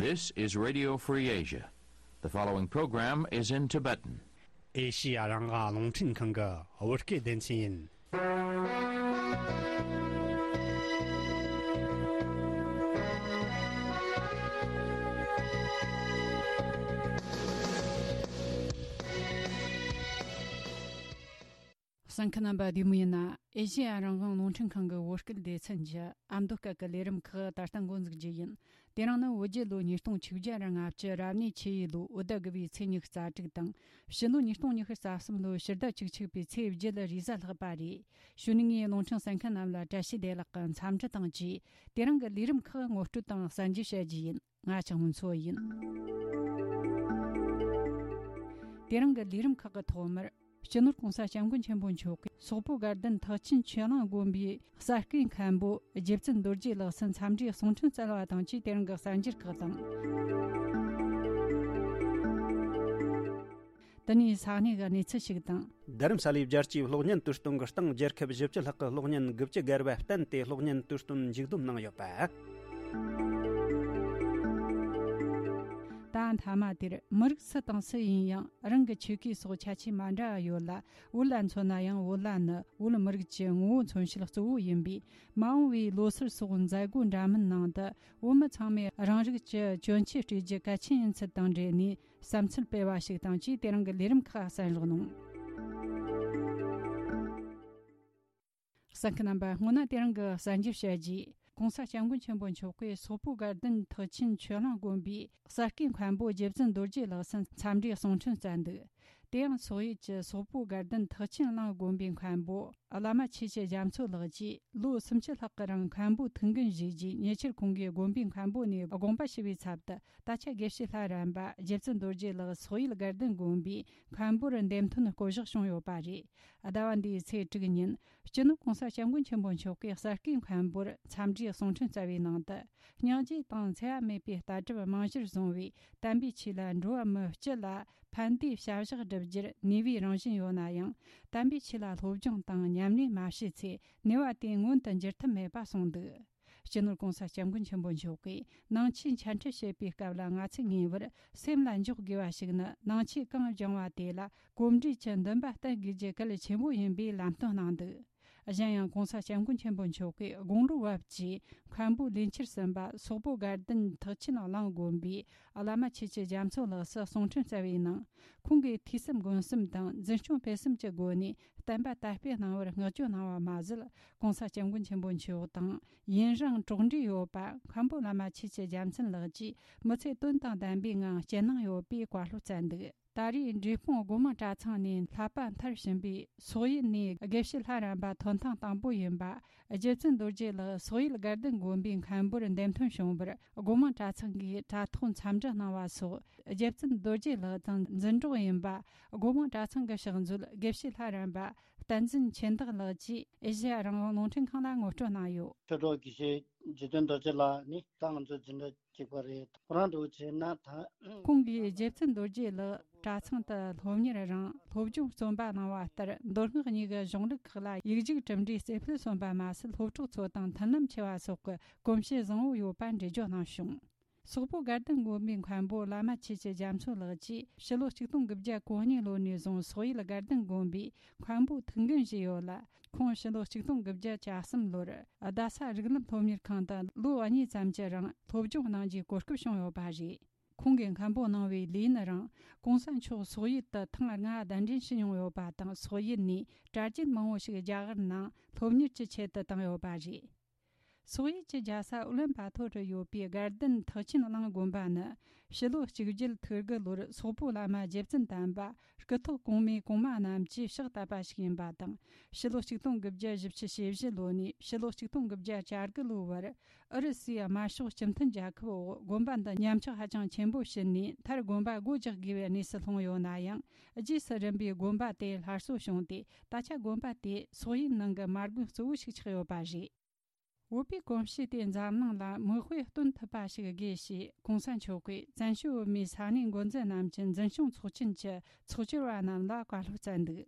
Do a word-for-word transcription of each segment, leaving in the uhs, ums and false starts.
This is Radio Free Asia. The following program is in Tibetan. ཨེ་ཤི་ཡ་རང་དབང་རླུང་འཕྲིན་ཁང་གི་བོད་སྐད་སྡེ་ཚན་ཡིན། གསན་མཁན་རྣམ་པ་བདེ་མོ་ཡིན་ན། ཨེ་ཤི་ཡ་རང་དབང་རླུང་འཕྲིན་ཁང་གི་བོད་སྐད་སྡེ་ཚན་གྱི་ཨ་མདོ་སྐད་ཀྱི་ལས་རིམ་ཁག་ད་ལྟ་འགོ་འཛུགས་རྒྱུ་ཡིན། དེ་རིང་ནི་བོད་རྒྱལ་ལོ་ཉིས་སྟོང་ཆིག་བརྒྱ་ར་ལྔ་བཅུ་རབ་གནས་ཆུ་ཡོས་ལོའི་བོད་ཟླ་དགུ་བའི་ཚེས་ཉི་ཤུ་རྩ་དྲུག་དང་། ཕྱི་ལོ་ཉིས་སྟོང་ཉི་ཤུ་རྩ་གསུམ་ལོའི་ཕྱི་ཟླ་བཅུ་གཅིག་པའི་ཚེས་བརྒྱད་རེས་གཟའ་ལྷག་པ་རེད། གཞུག་ནས་ངས་རླུང་འཕྲིན་གསན་མཁན་རྣམས་ལ་བཀྲ་ཤིས་བདེ་ལེགས་ཀྱི་འཚམས་འདྲི་དང་བཅས། དེ་རིང་གི་ལས་རིམ་ཁག་ངོ་སྤྲོད་དང་གསན་རྒྱུ་བྱ་རྒྱུ་ཡིན། ང་ཆང་མུན་མཚོ་ཡིན། དེ་རིང་གི་ལས་རིམ་ཁག་གི་ཐོག་མར། སྤྱི་ནོར་༸གོང་ས་༸སྐྱབས་མགོན་ཆེན་པོ་མཆོག་གིས་སོག་པོ་དགའ་ལྡན་ཐེག་ཆེན་ཆོས་གླིང་དགོན་པའི་གསར་བསྐོས་མཁན་པོ་རྗེ་བཙུན་རྡོ་རྗེ་ལགས་སུ་འཚམས་འདྲིའི་གསུང་འཕྲིན་བསྩལ་བ་དང་བཅས། དེ་རིང་གི་གསར་འགྱུར་ཁག་དང་། དེ་ནས་ས་གནས་ཀྱི་གནས་ཚུལ་ཞིག་དང་། རྡ་རམ་ས་ལའི་རྒྱལ་སྤྱིའི་གློག་བརྙན་དུས་སྟོན་གྱི་སྟེང་རྒྱལ་ཁབ་བཞི་བཅུ་ལྷག་གི་གློག་བརྙན་དགུ་བཅུ་བརྒལ་བ་བསྟན་ཏེ་གློག་བརྙན་དུས་སྟོན་མཇུག་བསྡོམས་གནང་ཡོད་པ། ད་མཐའ་མ་དེར་མི་རིགས་སུ་དང་སུ་ཡིན་ཡང་རང་གི་ཆོས་གོས་སོགས་ཁྱད་ཆོས་མ་འདྲ་བ་ཡོད་ལ། བོད་ལ་མཚོན་ན་ཡང་བོད་ལྭ་ནི་བོད་མི་རིགས་ཀྱི་ངོ་བོ་མཚོན་བྱེད་གཙོ་བོ་ཡིན་པས། མ་འོངས་པའི་ལོ་སར་སོགས་མཛད་སྒོ་འདྲ་མིན་ནང་དུ་བོད་མི་ཚང་མས་རང་རིགས་ཀྱི་གྱོན་ཆས་སྤྲས་རྒྱུ་གལ་ཆེན་ཡིན་ཚུལ་དང་འབྲེལ་ནས། བསམ་ཚུལ་སྤེལ་བ་ཞིག་དང་བཅས། དེ་རིང་གི་ལས་རིམ་ཁག་གསན་རོགས་གནང་། གསན་མཁན་རྣམ་པ། སྔོན་ན་དེ་རིང་གི་གསར་འགྱུར་བཤད་རྗེས། ༸གོང་ས་༸སྐྱབས་མགོན་ཆེན་པོ་མཆོག་གིས་སོག་པོ་དགའ་ལྡན་ཐེག་ཆེན་ཆོས་གླིང་དགོན་པའི་གསར་བསྐོས་མཁན་པོ་རྗེ་བཙུན་རྡོ་རྗེ་ལགས་སུ་འཚམས་འདྲིའི་གསུང་འཕྲིན་བསྩལ་འདུག། དེ་ཡང་སོག་ཡུལ་གྱི་སོག་པོ་དགའ་ལྡན་ཐེག་ཆེན་གླིང་དགོན་པའི་མཁན་པོ་བླ་མ་ཆོས་ཀྱི་རྒྱ་མཚོ་ལགས་ཀྱིས་ལོ་སུམ་ཅུ་ལྷག་གི་རིང་མཁན་པོ་ཐུགས་འགན་བཞེས་རྗེས། ཉེ་ཆར་ཁོང་གིས་དགོན་པའི་མཁན་པོ་ནས་དགོངས་པ་ཞུ་བའི་ཚབ་ཏུ། ད་ཆ་དགེ་བཤེས་ལྷ་རམས་པ་རྗེ་བཙུན་རྡོ་རྗེ་ལགས་སོག་ཡུལ་དགའ་ལྡན་དགོན་པའི་མཁན་པོར་འདེམས་ཐོན་བསྐོ་གཞག་བྱུང་ཡོད་པ་རེད། ཟླ་བ་འདིའི་ཚེས་དྲུག་ཉིན། སྤྱི་ནོར་༸གོང་ས་༸སྐྱབས་མགོན་ཆེན་པོ་མཆོག་གིས་གསར་བསྐོས་མཁན་པོར་འཚམས་འདྲིའི་གསུང་འཕྲིན་བསྩལ་བའི་ནང་དུ། སྙིང་རྗེ་དང་འཚེ་བ་མེད་པའི་ལྟ་གྲུབ་རྨང་གཞིར་བཟུང་བའི་དམ་པའི་ཆོས་ལ་འགྲོ་བ་མི་སྤྱི་ལ་ཕན་བདེའི་བྱ་གཞག་བསྒྲུབ་རྒྱུར་ནུས་པའི་རང་བཞིན་ཡོད་ན་ཡང་། དམ་པའི་ཆོས་ལ་སློབ་སྦྱོང་དང་ཉམས་ལེན་མ་བྱས་ཚེ། ནུས་པ་དེ་མངོན་དུ་འགྱུར་ཐབས་མེད་པ་གསུངས་འདུག། སྤྱི་ནོར་༸གོང་ས་༸སྐྱབས་མགོན་ཆེན་པོ་མཆོག་གིས་ནང་ཆོས་འཆད་ཁྲིད་བྱེད་པའི་སྐབས་ལ། ང་ཚོས་ངེས་པར་སེམས་ལ་འཇོག་དགོས་པ་ཞིག་ནི། ནང་ཆོས་གང་སྦྱངས་པ་དེ་ལ་གོམས་འདྲིས་ཀྱི་འདུན་པ་བསྟེན་དགོས་རྒྱུ་གལ་ཆེན་པོ་ཡིན་པའི་ལམ་སྟོན་གནང་འདུག། གཞན་ཡང་༸གོང་ས་༸སྐྱབས་མགོན་ཆེན་པོ་མཆོག་གིས་དགུང་ལོ་བབས་ཀྱི་མཁན་པོ་ལས་འཁྱུར་ཟིན་པ་སོག་པོ་དགའ་ལྡན་ཐེག་ཆེན་གླིང་དགོན་པའི་བླ་མ་ཆོས་ཀྱི་རྒྱ་མཚོ་ལགས་སུ་གསུང་འཕྲིན་བསྩལ་བའི་ནང་། ཁོང་གིས་ཐོས་བསམ་སྒོམ་གསུམ་དང་འཛིན་སྐྱོང་སྤེལ་གསུམ་གྱི་སྒོ་ནས་བསྟན་པ་དར་སྤེལ་གནང་བར་བསྔགས་བརྗོད་གནང་བ་མ་ཟད། ༸གོང་ས་༸སྐྱབས་མགོན་ཆེན་པོ་མཆོག་དང་ཡུན་རིང་གྲོགས་འདྲིས་ཡོད་པ་མཁན་པོ་བླ་མ་ཆོས་ཀྱི་རྒྱ་མཚོ་ལགས་ཀྱིས་མི་ཚེ་དོན་དང་ལྡན་པའི་ངང་སྐྱེལ་གནང་ཡོད་པའི་བཀའ་སློབ་བསྩལ་འདུག། ད་རེས་འབྲས་སྤུངས་སྒོ་མང་གྲྭ་ཚང་ནས་བསླབ་པ་མཐར་ཕྱིན་པའི་སོག་ཡུལ་ནས་དགེ་བཤེས་ལྷ་རམས་པ་ཐོན་ཐེངས་དང་པོ་ཡིན་པ། རྗེ་བཙུན་རྡོ་རྗེ་ལགས་སོག་ཡུལ་དགའ་ལྡན་དགོན་པའི་མཁན་པོར་འདེམས་ཐོན་བྱུང་བར། སྒོ་མང་གྲྭ་ཚང་གིས་དྲ་ཐོག་འཚམས་འདྲི་གནང་བ་སོགས། རྗེ་བཙུན་རྡོ་རྗེ་ལགས་དང་འཛིན་གྲོགས་ཡིན་པ། སྒོ་མང་གྲྭ་ཚང་གི་ཕྱག་མཛོད་དགེ་བཤེས་ལྷ་རམས་པ་བསྟན་འཛིན་ཆོས་བདག་ལགས་ཀྱིས་ཨེ་ཤེ་ཡ་རང་དབང་རླུང་འཕྲིན་ཁང་ལ་ངོ་སྤྲོད་གནང་ཡོད། ཆོས་གྲོགས་དགེ་བཤེས་རྗེ་བཙུན་རྡོ་རྗེ་ལགས་ནི་ད་ང་ཚོའི་འཛིན་གྲྭ་གཅིག་པ་རེད། ཁོ་རང་འདྲ་བོ་བྱས་ན་ད། ཁོང་གིས་རྗེ་བཙུན་རྡོ་རྗེ་ལགས་གྲྭ་ཚང་དུ་སློབ་གཉེར་རིང་སློབ་སྦྱོང་རྩོམ་པ་གནང་བ་ལྟར། མདོ་སྔགས་གཉིས་ཀྱི་གཞུང་ལུགས་ཁག་ལ་ཡིག་རྒྱུགས་གྲུབ་འབྲས་རྩེ་ཕུད་སོན་པ་མ་ཟད། སློབ་གྲོགས་ཚོ་དང་མཐུན་ལམ་ཆེ་བ་སོགས་ཀྱི་གོམས་གཤིས་བཟང་བོ་ཡོད་པ་འགྲེལ་བརྗོད་གནང་བྱུང་། སོག་པོ་དགའ་ལྡན་དགོན་པའི་མཁན་པོ་བླ་མ་ཆོས་ཀྱི་རྒྱ་མཚོ་ལགས་ཀྱིས་ཕྱི་ལོ་ཆིག་སྟོང་དགུ་བརྒྱ་གོ་གཉིས་ལོ་ནས་བཟུང་སོག་ཡུལ་དགའ་ལྡན་དགོན་པའི་མཁན་པོ་ཐུགས་འགན་བཞེས་ཡོད་ལ། ཁོང་ཕྱི་ལོ་ཆིག་སྟོང་དགུ་བརྒྱ་གྱ་གསུམ་ལོར་རྡ་ས་རིགས་ལམ་སློབ་གཉེར་ཁང་དུ་ལོ་གཉིས་ཙམ་གྱི་རིང་སློབ་སྦྱོང་གནང་རྒྱུའི་གོ་སྐབས་བྱུང་ཡོད་པ་རེད། ཁོང་གིས་མཁན་པོ་གནང་བའི་ལས་ཡུན་རིང་། གོང་ས་མཆོག་སོག་ཡུལ་དུ་ཐེངས་ལྔ་གདན་འདྲེན་ཞུས་མྱོང་ཡོད་པ་དང་། སོག་ཡུལ་ནས་གྲྭ་རྒྱུན་མང་བོ་ཞིག་རྒྱ་གར་ནང་སློབ་གཉེར་གྱི་ཆེད་དུ་བཏང་ཡོད་པ་རེད། སོག་ཡུལ་གྱི་རྒྱལ་ས་ཨུ་ལན་བྷ་ཐོར་དུ་ཡོད་པའི་དགའ་ལྡན་ཐེག་ཆེན་གླིང་དགོན་པ་ནི། ཕྱི་ལོ་གཅིག་བརྒྱད་ཐིག་དགུ་ལོར་སོག་པོ་བླ་མ་རྗེ་བཙུན་དམ་པ་སྐུ་ཐོག་གོང་མའི་གོང་མ་རྣམས་ཀྱིས་ཕྱག་བཏབ་པ་ཞིག་ཡིན་པ་དང་། ཕྱི་ལོ་ཆིག་སྟོང་དགུ་བརྒྱ་བཞི་བཅུ་ཞེ་བཞི་ལོ་ནས་ཕྱི་ལོ་ཆིག་སྟོང་དགུ་བརྒྱ་གྱ་དགུ་ལོའི་བར། ཨུ་རུ་སུའི་དམར་ཤོག་སྤྱི་མཐུན་རྒྱལ་ཁབ་འོག་དགོན་པ་འདི་ཉམས་ཆག་ཧ་ཅང་ཆེན་པོ་ཕྱིན་ནས། མཐར་དགོན་པ་སྒོ་རྒྱག་དགོས་པའི་གནས་སུ་ལྷུང་ཡོད་ན་ཡང་། རྗེས་སུ་རིམ་པས་དགོན་པ་དེ་སླར་གསོ་བྱུང་སྟེ། ད་ཆ་དགོན་པ་དེ་སོག་ཡུལ་ནང་གི་མ་དགོན་གཙོ་བོ་ཞིག་ཆགས་ཡོད་པ་རེད། བོད་པའི་གོམས་གཤིས་དེ་འཛམ་གླིང་ལ་མིག་དཔེ་སྟོན་ཐུབ་པ་ཞིག་དགོས་ཞེས། གོང་ས་མཆོག་གིས་བཙན་བྱོལ་བོད་མིའི་ས་གནས་འགོ་འཛིན་རྣམས་ཀྱི་འཛིན་སྐྱོང་ཚོགས་ཆེན་གྱི་ཚོགས་བཅར་བ་རྣམས་ལ་བཀའ་སློབ་སྩལ་འདུག།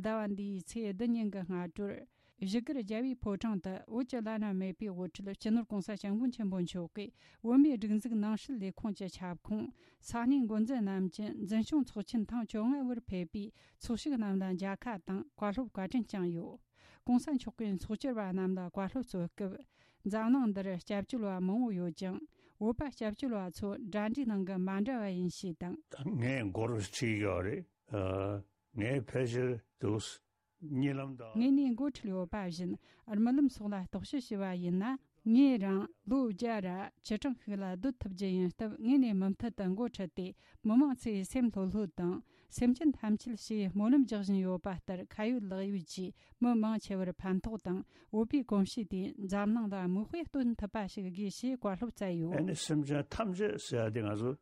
ཟླ་བ་འདིའི་ཚེས་བདུན་ཉིན་གྱི་སྔ་དྲོར། བཞུགས་སྒར་རྒྱལ་བའི་ཕོ་བྲང་དུ་བོད་ཀྱི་བླ་ན་མེད་པའི་དབུ་ཁྲིད་སྤྱི་ནོར་༸གོང་ས་༸སྐྱབས་མགོན་ཆེན་པོ་མཆོག་གིས་བོད་མིའི་སྒྲིག་འཛུགས་ནང་སྲིད་ལས་ཁུངས་ཀྱི་ཁྱབ་ཁོངས་ས་གནས་འགོ་འཛིན་རྣམས་ཀྱི་འཛིན་སྐྱོང་ཚོགས་ཆེན་ཐེངས་བཅོ་ལྔ་བར་ཕེབས་པའི་ཚོགས་ཞུགས་རྣམས་ལ་མཇལ་ཁ་དང་བཀའ་སློབ་བཀའ་དྲིན་བསྐྱངས་ཡོད། ༸གོང་ས་མཆོག་གིས་ཚོགས་བཅར་བ་རྣམས་ལ་བཀའ་སློབ་སྩལ་སྐབས། འཛམ་གླིང་འདིར་སྐྱབས་བཅོལ་བ་མང་བོ་ཡོད་ཀྱང་། བོད་པ་སྐྱབས་བཅོལ་བ་ཚོ་འདྲ་འདྲའི་ནང་གི་མ་འདྲ་བ་ཡིན་ཞེས་དང་། ངས་མགོ་རུ་ཁྲིད་ཡོད་རེད། ཨ། ངས་ཕལ་ཆེར་འདུག་གཉིད་ལམ་དང་། ངས་ནས་འགོ་ཁྲིད་ཡོད་པ་བཞིན། རྨི་ལམ་སོགས་ལ་རྟོག་ཞིབ་བྱས་པ་ཡིན་ན། ངས་རང་ལོ་བརྒྱ་ར་བཅུ་གྲངས་ཤིག་ལ་སྡོད་ཐུབ་རྒྱུ་ཡིན་སྟབས། ངས་ནས་མུ་མཐུད་དུ་འགོ་ཁྲིད་དེ། མི་མང་ཚོའི་སེམས་ལྷོད་ལྷོད་དང་། སེམས་ཅན་ཐམས་ཅད་ཞེས་སྨོན་ལམ་རྒྱག་བཞིན་ཡོད་པ་ལྟར། ཁ་ཡོད་ལག་ཡོད་ཀྱིས་མི་མང་ཆེ་བར་ཕན་ཐོགས་དང་། བོད་པའི་གོམས་གཤིས་དེ་འཛམ་གླིང་ལ་མིག་དཔེ་སྟོན་ཐུབ་པ་ཞིག་དགོས་ཞེས་བཀའ་སློབ་སྩལ་ཡོད། ཨ་ནི་སེམས་ཅན་ཐམས་ཅད་ཟེར་ཡ་དེ་ང་ཚོ་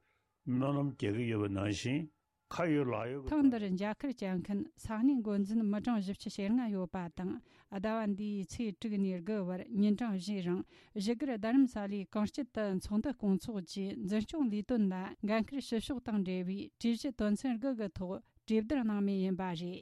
སྨོན་ལམ་རྒྱག་གི་ཡོད་པ་ནང་བཞིན། ཁ་ཡོད་ལག་ཡོད་ཀྱི། ཐེངས་འདིར་མཇལ་ཁར་བཅར་མཁན་ས་གནས་འགོ་འཛིན་མི་གྲངས་བཞི་བཅུ་ཞེ་ལྔ་ཡོད་པ་དང་། ཟླ་བ་འདིའི་ཚེས་དྲུག་ནས་དགུ་བར་ཉིན་གྲངས་བཞིའི་རིང་བཞུགས་སྒར་རྡ་རམ་ས་ལའི་གངས་སྐྱིད་དུ་ཚོགས་འདུ་སྐོང་ཚོགས་ཀྱིས་འཛིན་སྐྱོང་ལས་དོན་ལ་འགན་འཁུར་བྱེད་ཕྱོགས་དང་འབྲེལ་བའི་གྲོས་གཞི་དོན་ཚན་དགུ་གི་ཐོག་གྲོས་བསྡུར་གནང་མུས་ཡིན་པ་རེད།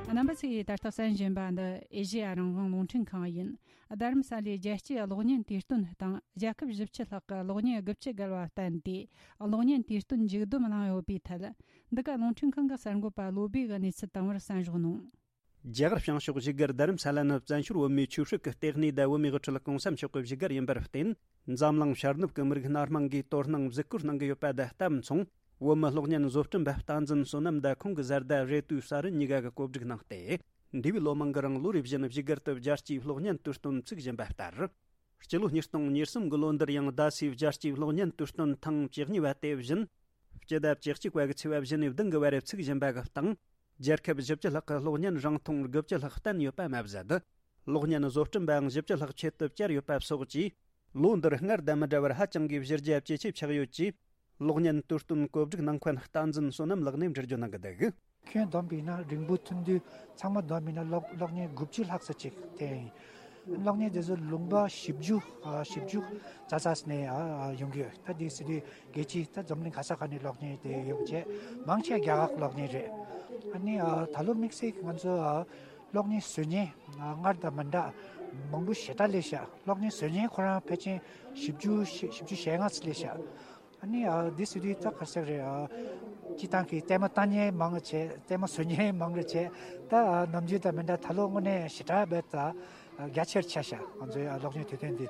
རྣམ་པ་ཚོས་ད་ལྟ་གསན་བཞིན་པ་འདི་ཨེ་ཤེ་ཡ་རང་དབང་རླུང་འཕྲིན་ཁང་ཡིན། རྡ་རམ་ས་ལའི་རྒྱལ་སྤྱིའི་གློག་བརྙན་དུས་སྟོན་སྟེང་རྒྱལ་ཁབ་བཞི་བཅུ་ལྷག་གི་གློག་བརྙན་དགུ་བཅུ་བརྒལ་བ་བསྟན་ཏེ། གློག་བརྙན་དུས་སྟོན་མཇུག་བསྡོམས་གནང་ཡོད་པའི་ཐད། འདི་ག་རླུང་འཕྲིན་ཁང་གི་གསར་འགོད་པ་བློ་བྷེ་གིས་གནས་ཚུལ་བཏང་བར་གསན་རོགས་གནང་། རྒྱ་གར་བྱང་ཕྱོགས་བཞུགས་སྒར་རྡ་རམ་ས་ལ་ནི་བཙན་བྱོལ་བོད་མིའི་ཆོས་སྲིད་ཀྱི་ལྟེ་གནས་དང་བོད་མིའི་དབུ་ཁྲིད་༸གོང་ས་མཆོག་གི་བཞུགས་སྒར་ཡིན་པར་བརྟེན། འཛམ་གླིང་ཤར་ནུབ་ཀྱི་མི་རིགས་སྣ་མང་གིས་དོ་སྣང་གཟིགས་སྐོར་གནང་གི་ཡོད་པ་དང་ལྟ་མཚུངས། བོད་མི་གློག་བརྙན་བཟོ་སྐྲུན་པ་བསྟན་འཛིན་བསོད་ནམས་དང་ཁོང་གི་བཟའ་ཟླ་རེ་ཏུའུ་ས་རུ་གཉིས་ཀ་གིས་གོ་སྒྲིག་གནང་སྟེ། འདས་པའི་ལོ་མང་གི་རིང་ལོ་རེ་བཞིན་བཞུགས་སྒར་དུ་རྒྱལ་སྤྱིའི་གློག་བརྙན་དུས་སྟོན་བཙུགས་བཞིན་པ་ལྟར། སྤྱི་ལོ་ཉིས་སྟོང་ཉེར་གསུམ་གྱི་ལོ་འདིར་ཡང་རྡ་སའི་རྒྱལ་སྤྱིའི་གློག་བརྙན་དུས་སྟོན་ཐེངས་བཅུ་གཉིས་པ་དེ་བཞིན། སྤྱི་ཟླ་བཅུ་གཅིག་པ་གི་ཚེས་པ་བཞི་ནས་བདུན་གྱི་བར་བཙུགས་བཞིན་པ་གི་སྟེང་། རྒྱལ་ཁབ་བཞི་བཅུ་ལྷག་གི་གློག་བརྙན་རིང་ཐུང་དགུ་བཅུ་ལྷག་བསྟན་ཡོད་པ་མ་ཟད། གློག་བརྙན་བཟོ་སྐྲུན་པའང་བཞི་བཅུ་ལྷག་ཆེད་དུ་བཅར་ཡོད་པ་སོགས་ཀྱིས། ལོ་འདིར་སྔར་དང་མི་འདྲ་བར་ཧ་ཅང་གི་གཞི་རྒྱ་ཇེ་ཆེ་ཆགས་ཡོད་ཅེས། གློག་བརྙན་དུས་སྟོན་གོ་སྒྲིག་གནང་མཁན་བསྟན་འཛིན་བསོད་ནམས་ལགས་ནས་འགྲེལ་བརྗོད་གནང་གི་འདུག་ཁྱོན་བསྡོམས་པས་ན་རིང་པོ་ཐུང་དུས་ཚང་མ་བསྡོམས་པས་ན་གློག་གློག་བརྙན་དགུ་བཅུ་ལྷག་ཙམ་ཅིག་དེ་ཡིན། གློག་བརྙན་དེ་ཚོ་ལུང་པ་བཞི་བཅུ་ཨ་བཞི་བཅུ་རྩ་ས་ནས་ཨ་ཡོང་གི་ཡོད། ད་དེ་སྲིད་དུས་རྒྱལ་སྤྱིའི་ད་འཛམ་གླིང་ག་ས་ག་ནས་གློག་བརྙན་དེ་ཡོང་བྱས་མང་ཆེ་རྒྱ་གར་གློག་བརྙན་རེད། ཨ་ནི་ཨ་ད་ལོ་དམིགས་བསལ་གྱི་ང་ཚོ་ཨ་གློག་བརྙན་བཟོ་མཁན་ཨ་སྔར་དང་མི་འདྲ་མང་པོ་ཞེ་དྲག་སླེབས་ཤག་གློག་བརྙན་བཟོ་མཁན་ཁོ་རང་ཕལ་ཆེར་བཞི་བཅུ་བཞི་བཅུ་ཞེ་ལྔ་ཙམ་སླེབས་ཤག་ཨ་ནི་ཨ་འདི་སྲིད་དུས་ད་ག་རེ་ཟེར་རེད། ཨ་སྤྱི་བཏང་གི་ལྟད་མོ་ལྟ་མཁན་མང་རུ་བྱས། ལྟད་མོ་བཟོ་མཁན་མང་རུ་བྱས། ད་ཨ་ནམ་རྒྱུན་དང་མི་འདྲ་ད་ལོ་དངོས་གནས་ཞེ་དྲག་རྦད་དེ་རྒྱ་ཆེར་ཆགས་ཤག་ང་ཚོའི་ཨ་གློག་བརྙན་དུས་སྟོན་འདི།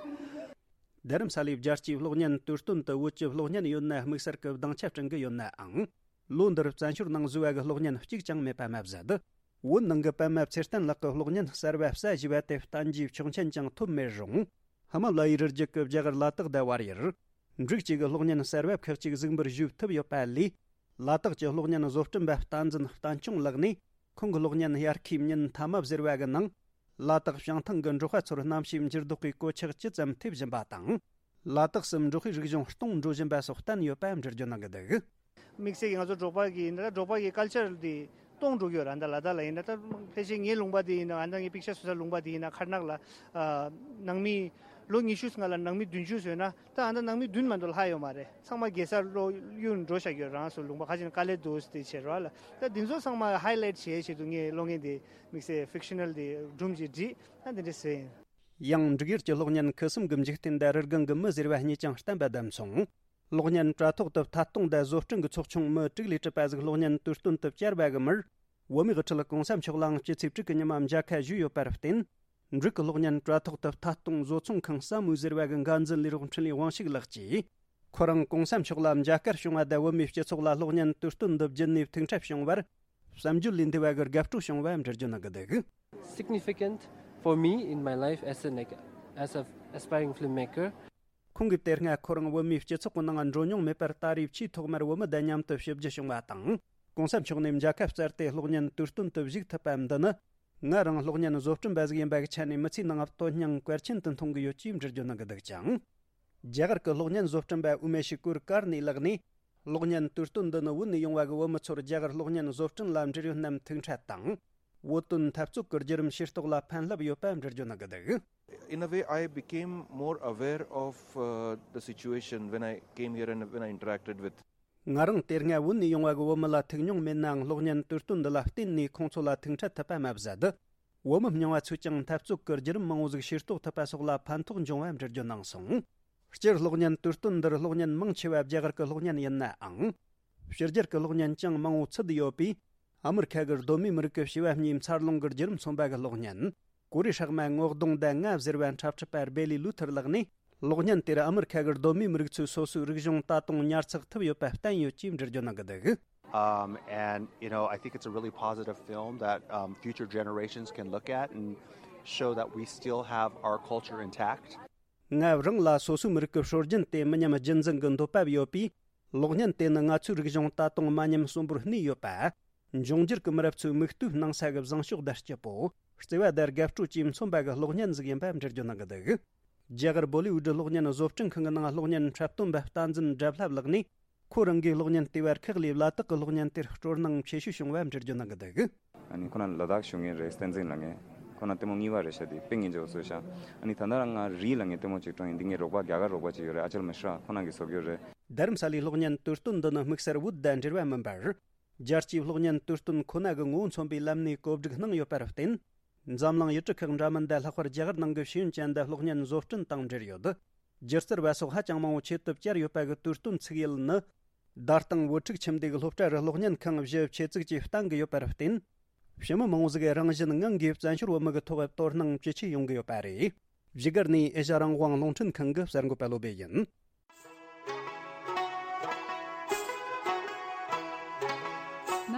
རྡ་རམ་ས་ལའི་རྒྱལ་སྤྱིའི་གློག་བརྙན་དུས་སྟོན་དུ་བོད་ཀྱི་གློག་བརྙན་ཡོད་ན་དམིགས་བསལ་གྱི་སྡིངས་ཆ་སྐྲུན་གྱི་ཡོད་ནའང་། ལོ་འདིར་བཙན་བྱོལ་ནང་བཟོས་པ་གི་གློག་བརྙན་གཅིག་ཀྱང་མེད་པ་མ་ཟད། བོད་ནང་གི་པདྨ་ཚེ་བརྟན་ལགས་ཀྱི་གློག་བརྙན་གསར་བ་གསལ་བཞེས་པ་དེ་བསྟན་རྒྱུའི་ཆོག་མཆན་ཀྱང་ཐོབ་མེད་རུང་། ཧི་མ་ལ་ཡའི་རི་རྒྱུད་ཀྱི་རྒྱ་གར་ལ་དྭགས་དང་བལ་ཡུལ། འབྲུག་བཅས་ཀྱི་གློག་བརྙན་གསར་བ་ཁག་ཅིག་གཟིགས་འབུལ་ཞུས་ཐུབ་ཡོད་པ་ལས། ལ་དྭགས་ཀྱི་གློག་བརྙན་བཟོ་སྐྲུན་པ་བསྟན་འཛིན་བསྟན་སྐྱོང་ལགས་ནས། ཁོང་གི་གློག་བརྙན་དབྱར་ཁའི་ཉིན་མཐའ་མ་ཟེར་བ་གི་ནང་། ལ་དྭགས་བྱང་ཐང་གི་འབྲོག་པ་ཚོར་གནམ་གཤིས་འགྱུར་ལྡོག་གི་གོད་ཆག་ཇི་ཙམ་ཐེབས་བཞིན་པ་དང་། ལ་དྭགས་སུ་འབྲོག་པའི་རིག་གཞུང་སྟོངས་འགྲོ་བཞིན་པ་སོགས་བསྟན་ཡོད་པ་འགྲེལ་བརྗོད་གནང་གི་འདུག་དམིགས་བསལ་གྱིས་ང་ཚོ་འབྲོག་པ་གི་ཡིན་ན་འབྲོག་པ་གི་ཀལ་ཅར་འདི་སྟོངས་འགྲོ་གི་ཡོད་རེད། ཨ་ད་ལ་དྭགས་ལ་ཡིན་ན། ད་ཕལ་ཆེར་ངའི་ལུང་པ་འདི་ཡིན་ན། ཨ་ད་ངའི་པིག་ཅར་བཟོ་ས་ལུང་པ་འདི་ཡིན་ན། མཁར་ནག་ལ་ཨ་ནང་མི་ལོ་ཉི་ཤུ་སྔ་ལ་ནང་མི་བདུན་ཅུ་བཟོས་ན། ད་ཨ་ད་ནང་མི་བདུན་མ་གཏོགས་ལྷག་ཡོད་མ་རེད། ཚང་མ་རྒྱལ་སར་ལོག་གཡུག་འགྲོ་བཞག་ཡོད། རང་སོ་ལུང་པ་ཁ་ཅིག་ན་ཀ་ལེ་དོ་སི་དེ་བྱས་རོགས་ལ། ད་འདི་ཚོ་ཚང་མ་ཧའི་ལའེ་ཊི་བྱེད་ཆེད་དུ་ངས་གློག་བརྙན་དེ་དམིགས་བསལ་ཕིག་ཤི་ནལ་དེ་སྒྲུང་ཅིག་བྲིས། ད་འདི་འདྲ་བཟོས་ཡིན། ཡང་འབྲུག་ཡུལ་གྱི་གློག་བརྙན་ཁུ་སིམ་གྱི་འཇིག་རྟེན་དང་རི་སྒང་གི་མི་ཟེར་བ་གཉིས་ཀྱང་བསྟན་པ་དང་མཚུངས། གློག་བརྙན་དྲ་ཐོག་ཏུ་ཐད་གཏོང་དང་བཟོ་སྐྲུན་གྱི་ཚོགས་ཆུང་མི་དྲུག་ལས་གྲུབ་པ་ཟིག་གློག་བརྙན་དུས་སྟོན་དུ་བཅར་བ་གི་མིར། བོད་མིའི་དབུ་ཁྲིད་༸གོང་ས་མཆོག་ལའང་སྤྱི་ཚེས་དྲུག་གི་ཉི་མ་མཇལ་ཁ་ཞུས་ཡོད་པར་བརྟེན། འབྲུག་གི་གློག་བརྙན་དྲ་ཐོག་ཏུ་ཐད་གཏོང་བཟོ་ཚོང་ཁང་ས་མུའུ་ཟེར་བ་གི་འགན་འཛིན་ལས་རོགས་འཕྲིན་ལས་དབང་ཕྱུག་ལགས་ཀྱིས། ཁོ་རང་༸གོང་ས་མཆོག་ལ་མཇལ་ཁར་བྱུང་བ་དང་། བོད་མིའི་སྤྱི་ཚོགས་ལ་གློག་བརྙན་དུས་སྟོན་འདི་བརྒྱུད་ནས་ཐུགས་འཕྲད་བྱུང་བར། བསམ་བརྗོད་ལས་འདས་པ་གི་དགའ་སྤྲོ་བྱུང་བ་འགྲེལ་བརྗོད་གནང་གི་འདུག Significant for me in my life as an as a aspiring filmmaker. ཁོང་གིས་དེ་སྔ་ཁོ་རང་བོད་མིའི་སྤྱི་ཚོགས་ཀྱི་ནང་འགྲོ་མྱོང་མེད་པར། ད་རེས་ཆེས་ཐོག་མར་བོད་མི་དང་མཉམ་དུ་ཞིབ་འཇུག་བྱུང་བ་དང་། ༸གོང་ས་མཆོག་ནས་མཇལ་ཁ་བསྩལ་ཏེ་གློག་བརྙན་དུས་སྟོན་དུ་བཞུགས་ཐུབ་པ་འདི་ནི། ང་རང་གློག་བརྙན་བཟོ་སྐྲུན་པ་ཟིག་ཡིན་པ་གི་ཆ་ནས་མི་ཚེའི་ནང་དོན་སྙིང་གལ་ཆེན་དུ་མཐོང་གི་ཡོད་ཅེས་འགྲེལ་བརྗོད་གནང་གི་འདུག་ཅིང་། རྒྱ་གར་གྱི་གློག་བརྙན་བཟོ་སྐྲུན་པ་ཨུ་མེ་ཤི་ཀུར་ཀར་ནི་ལགས་ནས། གློག་བརྙན་དུས་སྟོན་འདི་ནི་བོད་ནས་ཡོང་བ་གི་བོད་མི་ཚོར་རྒྱ་གར་གློག་བརྙན་བཟོ་སྐྲུན་ལ་འབྲེལ་ཡོད་རྣམས་ཐུགས་འཕྲད་དང་། བོད་དོན་འཐབ་རྩོད་ཀྱི་བརྒྱུད་རིམ་ཤེས་རྟོགས་ལ་ཕན་རླབས་ཡོད་པ་འགྲེལ་བརྗོད་གནང་གི་འདུག In a way, I became more aware of uh, the situation when I came here and when I interacted with. ང་རང་དེ་སྔ་བོད་ནས་ཡོང་བ་གི་བོད་མི་ལ་ཐུག་མྱོང་མེད་ནའང་གློག་བརྙན་དུས་སྟོན་འདི་ལ་བརྟེན་ནས་ཁོང་ཚོ་ལ་ཐུག་འཕྲད་ཐུབ་པ་མ་ཟད། བོད་མི་རྙིང་བ་ཚོས་ཀྱང་འཐབ་རྩོད་ཀྱི་བརྒྱུད་རིམ་མང་བོ་ཟིག་ཤེས་རྟོགས་ཐུབ་པ་སོགས་ལ་ཕན་ཐོགས་འབྱུང་བ་འགྲེལ་བརྗོད་གནང་སོང་། སྤྱིར་གློག་བརྙན་དུས་སྟོན་འདིར་གློག་བརྙན་མང་ཆེ་བ་རྒྱ་གར་གྱི་གློག་བརྙན་ཡིན་ནའང་། ཕྱི་རྒྱལ་གྱི་གློག་བརྙན་ཀྱང་མང་བོ་ཚུད་ཡོད་པས། ཨ་མི་རི་ཁ་གི་གདོད་མའི་མི་རིགས་ཀྱི་བྱིས་པ་གཉིས་འཚར་ལོངས་ཀྱི་བརྒྱུད་རིམ་མཚོན་པ་གི་གློག་བརྙན། གོ་རེ་ཧྲག་མ་ངོ་གདོང་ཟླ་ལྔ་ཟེར་བ་འཁྲབ་ཁྲིད་པ་སྦེ་ལི་ལུ་ཐར་ལགས་ནས། གློག་བརྙན་དེར་ཨ་མི་རི་ཁ་གི་གདོད་མའི་མི་རིགས་ཚོའི་སོ་སོའི་རིག་གཞུང་ད་དུང་ཉར་ཚགས་ཐུབ་ཡོད་པ་བསྟན་ཡོད་ཅེས་འགྲེལ་བརྗོད་གནང་གི་འདུག། Um, and, you know, I think it's a really positive film that, um, future generations can look at and show that we still have our culture intact. ང་རང་ལ་སོ་སོའི་མི་རིགས་ཀྱི་སྲོལ་རྒྱུན་དེ་མི་ཉམས་རྒྱུན་འཛིན་གྱི་འདོད་པ་ཡོད་པས། གློག་བརྙན་དེ་ནི་ང་ཚོའི་རིག་གཞུང་ད་དུང་མ་ཉམས་གསོན་པོར་གནས་ཡོད་པ། འབྱུང་འགྱུར་གྱི་མི་རབས་ཚོའི་མིག་ལྟོས་གནང་ས་གི་བཟང་ཕྱོགས་དང་སྐྱིད་པོ། བརྩེ་བ་དང་དགའ་སྤྲོ་བཅས་མཚོན་པ་གི་གློག་བརྙན་ཟིག་ཡིན་པ་འགྲེལ་བརྗོད་གནང་གི་འདུག། རྒྱ་གར་བོ་ལི་ཝུད་གློག་བརྙན་བཟོ་སྐྲུན་ཁང་གི་ནང་གློག་བརྙན་འཁྲབ་སྟོན་པ་བསྟན་འཛིན་བཀྲ་བྷ་ལགས་ནས། ཁོ་རང་གིས་གློག་བརྙན་ལྟེ་བར་ཁག་ལས་ལ་དྭགས་ཀྱི་གློག་བརྙན་དེར་སྤྲོ་སྣང་ཆེ་ཤོས་བྱུང་བ་འགྲེལ་བརྗོད་གནང་གི་འདུག། ཨ་ནི་ཁོ་ན་ལ་དྭགས་བཞུགས་མཁན་རེད། བསྟན་འཛིན་ལབ་མཁན། ཁོ་ན་ལྟད་མོ་གཉིས་པ་རེད་ཤག་དེ་དཔེ་ངན་ཅོག་བཟོས་ཤག། ཨ་ནི་ད་ལྟ་རང་ང་རི་ལབ་མཁན་ལྟད་མོ་ཅིག་སྤྲོ་ཡིན། འདི་ངའི་རོགས་པ་རྒྱ་གར་རོགས་པ་ཅིག་ཡོད་རེད། ཨ་ཅལ་མི་ཧྲ་ཁོ་ན་གིས་བཟོ་གི་ཡོད་རེད། རྡ་རམ་ས་ལའི་གློག་བརྙན་དུས་སྟོན་འདི་ནི་དམིགས་བསལ་བོད་དང་འབྲེལ་བ་མིན་པར། རྒྱལ་སྤྱིའི་གློག་བརྙན་དུས་སྟོན་ཁོ་ན་གི་ངོ་བོ་མཚོན་པའི་ལམ་ནས་གོ་སྒྲིག་གནང་ཡོད་པར་བརྟེན། འཛམ་གླིང་ཡུལ་གྲུ་ཁག་འདྲ་མིན་དང་ལྷག་པར་རྒྱ་གར་ནང་གི་ཤེས་ཡོན་ཅན་དང་གློག་བརྙན་བཟོ་སྐྲུན་དང་འབྲེལ་ཡོད། སྒྱུ་རྩལ་བ་སོགས་ཧ་ཅང་མང་བོ་ཆེད་དུ་བཅར་ཡོད་པ་གི་དུས་སྟོན་ཚིག་ཡུལ་ནི། བརྡ་དང་བུ་ཕྲུག་ཁྱིམ་སྡེ་གི་སློབ་གྲྭ་རུ་གློག་བརྙན་ཁང་བཞི་ཆེད་བཙུགས་ཀྱིས་བསྟན་གྱི་ཡོད་པར་བརྟེན། ཕྱི་མི་མང་བོ་ཟིག་གིས་རང་བཞིན་ངང་གིས་བཙན་བྱོལ་བོད་མི་གི་ཐོག་དོ་སྣང་ཇེ་ཆེ་ཡོང་གི་ཡོད་པ་རེད། བཞུགས་སྒར་ནས་ཨེ་ཤ་རང་དབང་རླུང་འཕྲིན་ཁང་གི་གསར་འགོད་པ་བློ་བྷེ་ཡིན།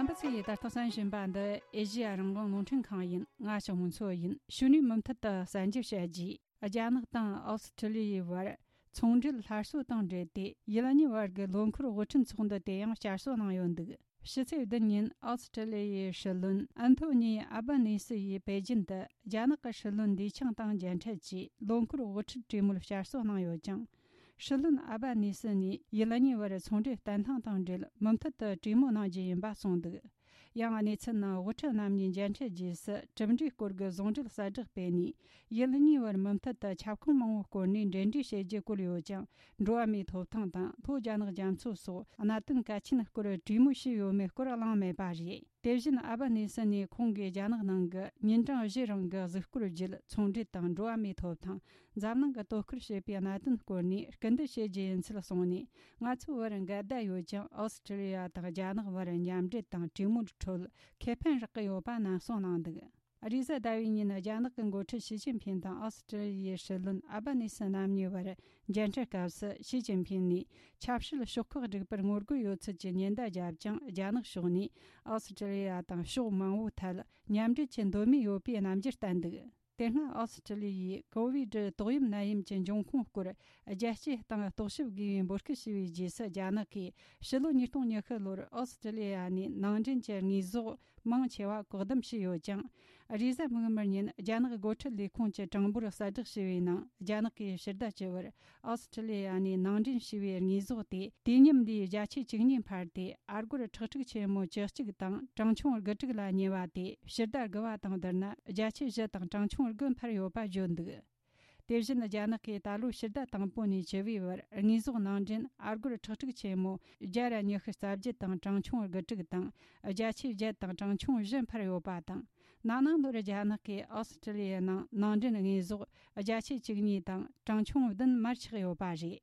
རྣམ་པ་ཚོས་ད་ལྟ་གསན་བཞིན་པ་འདི་ཨེ་ཤ་ཡ་རང་དབང་རླུང་འཕྲིན་ཁང་ཡིན། ང་ཞའོ་མུན་ཚོ་ཡིན། གཞུག་ནས་མུ་མཐུད་དུ་གསར་འགྱུར་བཤད་རྒྱུ། རྒྱ་ནག་དང་ཨོ་སི་ཁྲི་ལི་ཡའི་བར་ཚོང་འབྲེལ་སླར་གསོ་དང་འབྲེལ་ཏེ། ཡུལ་གཉིས་བར་གྱི་ལོ་འཁོར་དབུ་ཁྲིད་ཚོགས་འདུ་དེ་ཡང་བསྐྱར་གསོ་གནང་ཡོད་འདུག། ཕྱི་ཚེས་བདུན་ཉིན་ཨོ་སི་ཁྲི་ལི་ཡའི་སྲིད་བློན་ཨན་ཐོ་ནི་ཨ་བྷ་ནི་སི་ཡིས་པེ་ཅིན་དུ་རྒྱ་ནག་གི་སྲིད་བློན་ལི་ཆང་དང་མཇལ་འཕྲད་ཀྱིས་ལོ་འཁོར་དབུ་ཁྲིད་གྲོས་མོལ་བསྐྱར་གསོ་གནང་ཡོད་ཅིང་། སྲིད་བློན་ཨ་བྷ་ནི་སི་ནས་ཡུལ་གཉིས་བར་ཚོང་འབྲེལ་བརྟན་ལྷིང་དང་འབྲེལ་མུ་མཐུད་དུ་གྲོས་མོལ་གནང་རྒྱུ་ཡིན་པ་གསུངས་འདུག། ཡང་གནས་ཚུལ་ནང་དབུ་ཁྲིད་རྣམ་གཉིས་མཇལ་འཕྲད་རྗེས་སུ་གྲུབ་འབྲས་སྐོར་གྱི་ཟུང་འབྲེལ་གསལ་བསྒྲགས་སྤེལ་ནས། ཡུལ་གཉིས་བར་མུ་མཐུད་དུ་ཁྱབ་ཁོངས་མང་བོའི་སྐོར་ནས་འབྲེལ་འདྲིས་བྱེད་རྒྱུ་བཀོད་ཡོད་ཅིང་། འགྲོ་བ་མིའི་ཐོབ་ཐང་དང་ལྷོ་རྒྱ་ནག་རྒྱ་མཚོ་སོགས་གནད་དོན་གལ་ཆེན་སྐོར་གྲོས་མོལ་བྱས་ཡོད་མེད་སྐོར་གླེང་མེད་པ་རེད། དེ་བཞིན་ཨ་བྷ་ནི་སི་ནས་ཁོང་གིས་རྒྱ་ནག་ནང་གི་ཉིན་གྲངས་བཞི་རིང་གི་གཟིགས་སྐོར་བརྒྱུད། ཚོང་འབྲེལ་དང་འགྲོ་བ་མིའི་ཐོབ་ཐང་། འཛམ་གླིང་གི་དོ་ཁུར་བྱེད་པའི་གནད་དོན་སྐོར་ནས་སྐུལ་འདེད་བྱེད་རྒྱུ་ཡིན་ཚུལ་གསུངས་ནས། ང་ཚོའི་བར་འགལ་ཟླ་ཡོད་ཀྱང་། ཨོ་སི་ཁྲི་ལི་ཡ་དང་རྒྱ་ནག་བར་མཉམ་འབྲེལ་དང་གྲོས་མོལ་ཁྲོད་ཁེ་ཕན་རག་གི་ཡོད་པ་ནན་གསུངས་གནང་འདུག། རེས་གཟའ་ཟླ་བའི་ཉིན་རྒྱ་ནག་གི་འགོ་ཁྲིད་ཞི་ཅིན་ཕིང་དང་ཨོ་སི་ཁྲི་ལི་ཡའི་སྲིད་བློན་ཨ་བྷ་ནི་སི་རྣམ་གཉིས་བར་མཇལ་འཕྲད་སྐབས་སུ། ཞི་ཅིན་ཕིང་ནས་ཆབ་སྲིད་ཕྱོགས་ཁག་བསྒྲིགས་པར་ངོ་རྒོལ་ཡོད་ཚུལ་གྱི་ཉེན་བརྡ་བརྒྱབ་ཀྱང་། རྒྱ་ནག་ཕྱོགས་ནས་ཨོ་སི་ཁྲི་ལི་ཡ་དང་ཕྱོགས་མང་བོའི་ཐད་མཉམ་འབྲེལ་གྱི་འདོད་མོས་ཡོད་པའི་རྣམ་འགྱུར་བསྟན་འདུག། དེ་སྔ་ཨོ་སི་ཁྲི་ལི་ཡས་ཀོ་ཝི་ཌི་ཏོག་དབྱིབས་ནད་ཡམས་ཀྱི་འབྱུང་ཁུངས་སྐོར་རྒྱལ་སྤྱིའི་སྟེང་རྟོག་ཞིབ་དགོས་པའི་འབོད་སྐུལ་ཞུས་པའི་རྗེས་སུ། རྒྱ་ནག་གིས་ཕྱི་ལོ་ཉིས་སྟོང་ཉི་ཤུ་ལོར་ཨོ་སི་ཁྲི་ལི་ཡ་ནས་ནང་འདྲེན་གྱི་དངོས་ཟོག་མང་ཆེ་བ་བཀག་སྡོམ་བྱས་ཡོད་ཀྱང་། རེས་གཟའ་མིག་དམར་ཉིན་རྒྱ་ནག་འགོ་ཁྲིད་ལས་ཁུངས་ཀྱི་གྲངས་འབོར་གསལ་བསྒྲགས་བྱས་པའི་ནང་། རྒྱ་ནག་གིས་ཕྱི་ཟླ་བཅུ་བར་ཨོ་སི་ཁྲི་ལི་ཡ་ནས་ནང་འདྲེན་བྱས་པའི་དངོས་ཟོག་དེ་དུས་མཉམ་ལོའི་བརྒྱ་ཆ་བཅུ་གཉིས་འཕར་ཏེ། ཨ་སྒོར་ཁྲག་ཁྲིག་ཆེན་མོ་བཅུ་གཅིག་དང་གྲངས་ཆུང་དགུ་དྲུག་ལ་ཉེ་བ་དེ་ཕྱི་ཟླ་དགུ་པ་དང་བསྡུར་ན་བརྒྱ་ཆ་བཞི་དང་གྲངས་ཆུང་དགུ་འཕར་ཡོད་པ་བརྗོད་འདུག། དེ་བཞིན་རྒྱ་ནག་གིས་ད་ལོའི་ཕྱི་ཟླ་དང་པོ་ནས་བཅུ་པའི་བར་དངོས་ཟོག་ནང་འདྲེན་ཨ་སྒོར་ཁྲག་ཁྲིག་ཆེན་མོ་བརྒྱ་དང་ཉི་ཤུ་རྩ་བརྒྱད་དང་གྲངས་ཆུང་དགུ་དྲུག་དང་། བརྒྱ་ཆ་བརྒྱད་དང་གྲངས་ཆུང་བཞི་འཕར་ཡོད་པ་དང་། ན་ནིང་ལོར་རྒྱ་ནག་གིས་ཨོ་སི་ཁྲི་ལི་ཡའི་ནང་ནང་འདྲེན་དངོས་ཟོག་བརྒྱ་ཆ་བཅུ་གཉིས་དང་གྲངས་ཆུང་བདུན་མར་ཆག་ཡོད་པ་རེད།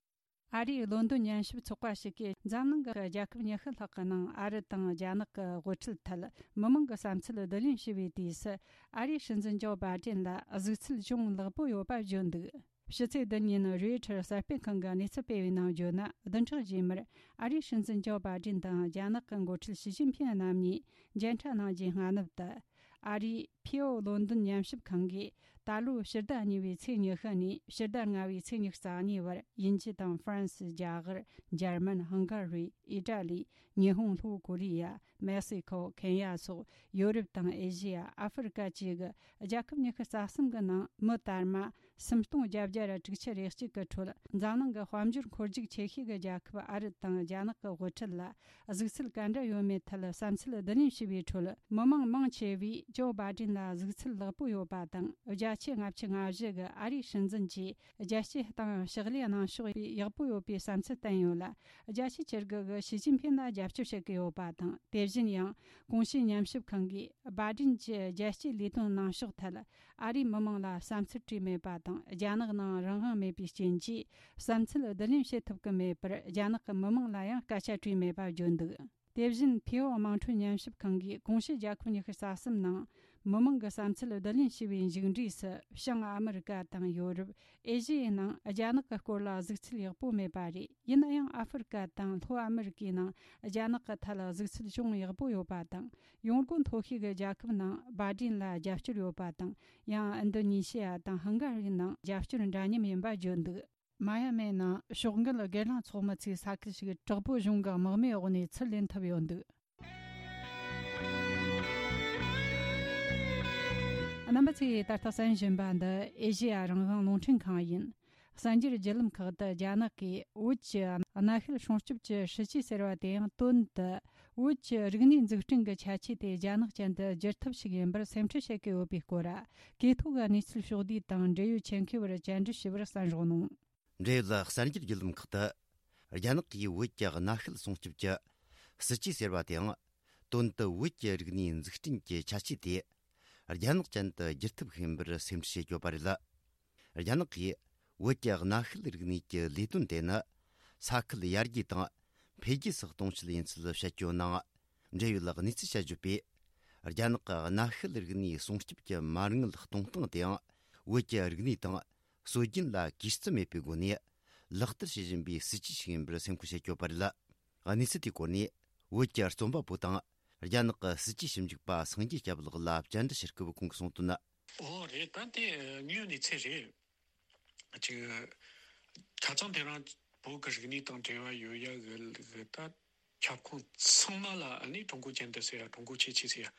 ཨ་རིའི་ལོན་ཏོན་ཉམས་ཞིབ་ཚོགས་པ་ཞིག་གིས་འཛམ་གླིང་གི་རྒྱལ་ཁབ་ཉི་ཤུ་ལྷག་གི་ནང་ཨ་རི་དང་རྒྱ་ནག་གི་དབུ་ཁྲིད་ཐད་མི་མང་གི་བསམ་ཚུལ་བསྡུ་ལེན་བྱས་པའི་དུས་སུ། ཨ་རིའི་སྲིད་འཛིན་ཇོ་བྷ་ཌེན་ལ་གཟིགས་ཚུལ་ཅུང་ལེགས་པོ་ཡོད་པ་བརྗོད་འདུག། ཕྱི་ཚེས་བདུན་ཉིན་རོའི་ཊར་གསར་སྤེལ་ཁང་གིས་གནས་ཚུལ་སྤེལ་བའི་ནང་བརྗོད་ན། བདུན་ཕྲག་རྗེས་མར་ཨ་རིའི་སྲིད་འཛིན་ཇོ་བྷ་ཌེན་དང་རྒྱ་ནག་གི་འགོ་ཁྲིད་ཞི་ཅིན་ཕིན་རྣམ་གཉིས་མཇལ་འཕྲད་གནང་རྒྱུའི་སྔ་ནུབ་ཏུ། ཨ་རིའི་ཕིའོ་ལོན་ཏོན་ཉམས་ཞིབ་ཁང་གིས་ད་ལོའི་ཕྱི་ཟླ་གཉིས་པའི་ཚེས་ཉི་ཤུ་ནས་ཕྱི་ཟླ་ལྔ་པའི་ཚེས་ཉི་ཤུ་རྩ་གཉིས་བར་དབྱིན་ཇི་དང་ཧྥ་རན་སི། རྒྱ་གར། འཇར་མན། ཧང་ག་རི། ཨི་ཏྲ་ལི། ཉི་ཧོང་། ལྷོ་ཀོ་རི་ཡ། མེག་སི་ཁོ། ཁེན་ཡ་སོགས་ཡོ་རོབ་དང་ཨེ་ཤི་ཡ། ཨ་ཧྥེ་རི་ཀ་བཅས་ཀྱི་རྒྱལ་ཁབ་ཉི་ཤུ་རྩ་གསུམ་གྱི་ནང་མི་དར་མ་སུམ་སྟོང་བརྒྱད་བརྒྱ་དྲུག་ཅུ་རེ་གཅིག་གི་ཁྲོད། འཛམ་གླིང་གི་དཔལ་འབྱོར་འཁོར་རྒྱུག་ཆེ་ཤོས་ཀྱི་རྒྱལ་ཁབ་ཨ་རི་དང་རྒྱ་ནག་གི་དབུ་ཁྲིད་ལ་གཟིགས་ཚུལ་ག་འདྲ་ཡོད་མེད་ཐད་བསམ་ཚུལ་བསྡུ་ལེན་བྱས་པའི་ཁྲོད། མི་མང་མང་ཆེ་བས་ཇོ་བྷ་ཌེན་ལ་གཟིགས་ཚུལ་ལེགས་པོ་ཡོད་པ་དང་། བརྒྱ་ ཆེད་ལྔ་བཅུ་ང་བཞི་གི་ཨ་རིའི་སྲིད་འཛིན་གྱིས་རྒྱལ་སྤྱིའི་སྟེང་ཕྱག་ལས་གནང་ཕྱོགས་ཡག་པོ་ཡོད་པའི་བསམ་ཚུལ་བསྟན་ཡོད་ལ། རྒྱལ་སྤྱིའི་ཆེད་དུ་གི་ཞི་ཅིན་ཕིན་ལ་རྒྱབ་སྐྱོར་བྱེད་ཀྱི་ཡོད་པ་དང་། དེ་བཞིན་ཡང་གོང་ཞུས་ཉམས་ཞིབ་ཁང་གིས་བྷ་དྲིན་གྱི་རྒྱལ་སྤྱིའི་ལས་དོན་གནང་ཕྱོགས་ཐད་ཨ་རིའི་མི་མང་ལ་བསམ་ཚུལ་བྲིས་མེད་པ་དང་། རྒྱ་ནག་ནང་རང་དབང་མེད་པའི་རྐྱེན་གྱིས་བསམ་ཚུལ་བསྡུ་ལེན་བྱེད་ཐུབ་ཀྱི་མེད་པར། རྒྱ་ནག་གི་མི་མང་ལ་ཡང་སྐད་ཆ་དྲིས་མེད་པ་བརྗོད་འདུག་དེ་བཞིན་ཕེའོ་དམངས་ཁྲོད་ཉམས་ཞིབ་ཁང་གིས་གོང་ཞུས་རྒྱལ་ཁབ་ཉི་ཤུ་རྩ་གསུམ་ནང་མི་མང་གི་བསམ་ཚུལ་བསྡུ་ལེན་བྱས་པའི་མཇུག་འབྲས་སུ། བྱང་ཨ་མི་རི་ཀ་དང་ཡོ་རོབ། ཨེ་ཤི་ཡའི་ནང་རྒྱ་ནག་གི་སྐོར་ལ་གཟིགས་ཚུལ་ཡག་པོ་མེད་པ་རེད། ཡིན་ན་ཡང་ཨ་ཧྥེ་རི་ཀ་དང་ལྷོ་ཨ་མི་རི་ཀའི་ནང་རྒྱ་ནག་གི་ཐད་ལ་གཟིགས་ཚུལ་ཅུང་ཡག་པོ་ཡོད་པ་དང་། ཡོང་སྒོ་མཐོ་ཤོས་ཀྱི་རྒྱལ་ཁབ་ནང་བྷ་དྲིན་ལ་རྒྱབ་སྐྱོར་ཡོད་པ་དང་། ཡང་ཨིན་ཌོ་ནེ་ཤི་ཡ་དང་ཧང་ག་རིའི་ནང་རྒྱབ་སྐྱོར་འདྲ་མཉམ་ཡིན་པ་བརྗོད་འདུག་མ་ཡ་མའི་ནང་ཕྱོགས་འགལ་སྒེར་ལངས་ཚོགས་མི་ཚོའི་ས་ཁུལ་ཞིག་དྲག་པོའི་གཞུང་གི་དམག་མིའི་འོག་ནས་ཚུར་ལེན་ཐུབ་ཡོད་འདུག་རྣམ་པ་ཚོས་ད་ལྟ་གསན་བཞིན་པ་འདི་ཨེ་ཤེ་ཡ་རང་དབང་རླུང་འཕྲིན་ཁང་ཡིན། གསར་འགྱུར་བརྒྱུད་ལམ་ཁག་ཏུ་རྒྱ་ནག་གིས་བོད་ཀྱི་གནའ་ཤུལ་སྲུང་སྐྱོབ་ཀྱི་སྲིད་ཇུས་ཟེར་བ་དེ་ཡང་དོན་དུ་བོད་ཀྱི་རིག་གནས་འཛུགས་སྐྲུན་གྱི་ཁྱད་ཆོས་དེ་རྒྱ་ནག་ཅན་དུ་བསྒྱུར་ཐབས་ཤིག་ཡིན་པར་སེམས་ཁྲལ་བྱེད་ཀྱི་ཡོད་པའི་སྐོར། གོ་ཐོས་ཀྱི་གནས་ཚུལ་ཕྱོགས་བསྡུས་དང་འབྲེལ་ཡོད་ཆེད་མཁས་པར་བཅར་འདྲི་ཞུས་པར་གསན་རོགས་གནང་། འབྲེལ་ཡོད་གསར་འགྱུར་བརྒྱུད་ལམ་ཁག་ཏུ། རྒྱ་ནག་གིས་བོད་ཀྱི་གནའ་ཤུལ་སྲུང་སྐྱོབ་ཀྱི་སྲིད་ཇུས་ཟེར་བ་དེའང་། དོན་དུ་བོད་ཀྱི་རིག་གནས་འཛུགས་སྐྲུན་གྱི་ཁྱད་ཆོས་དེ། རྒྱ་ནག་ཅན་དུ་བསྒྱུར་ཐབས་ཤིག་ཡིན་པར་སེམས་ཁྲལ་བྱེད་ཀྱི་ཡོད་པ་རེད། རྒྱ་ནག་གིས་བོད་ཀྱི་གནའ་ཤུལ་རིག་གནས་ཀྱི་ལས་དོན་དེ་ནི། ས་ཁུལ་ཡར་རྒྱས་དང་འཕེལ་རྒྱས་སུ་གཏོང་ཆེད་ཡིན་ཚུལ་བཤད་ཀྱི་ཡོད་ནའང་། འབྲེལ་ཡོད་གནས་ཚུལ་དཔྱད་བརྗོད་པས། རྒྱ་ནག་གི་གནའ་ཤུལ་རིག་གནས་སྲུང་སྐྱོབ་ཀྱི་མ་དངུལ་གཏོང་སྟངས་དེའང་། བོད་ཀྱི་རིག་གནས་དང་སྲོལ་རྒྱུན་ལ་གུས་བརྩི་མེད་པའི་སྒོ་ནས་ལག་བསྟར་བྱེད་བཞིན་པའི་སྲིད་ཇུས་ཤིག་ཡིན་པར་སེམས་ཁུར་བྱེད་ཀྱི་ཡོད་པ་རེད། གནས་ཚུལ་དེའི་སྐོར་ནས་བོད་ཀྱི་རྩོམ་པ་པོ་དང་རྒྱ་ནག་གི་སྲིད་ཇུས་ཞིབ་འཇུག་པ་སངས་རྒྱས་སྐྱབས་ལགས་ལ་བཅར་འདྲི་ཞུ་སྐབས་ཁོང་གིས་གསུངས་དོན། ཨོ་རེད། ད་དེ་དངོས་ཡོད་གནས་ཚུལ་རེད། ཅིག་ཁ་སང་དེ་རིང་བོད་ཀྱི་རིག་གནས་དང་འབྲེལ་བ་ཡོད་ཡ་གི་གི་ད་ཁྱབ་ཁོངས་ཚང་མ་ལ་ཨ་ནི་ཀྲུང་གོ་ཅན་དུ་ཟེར་ཡ། ཀྲུང་གོ་ཁྱད་ཆོས་ཟེར་ཡ་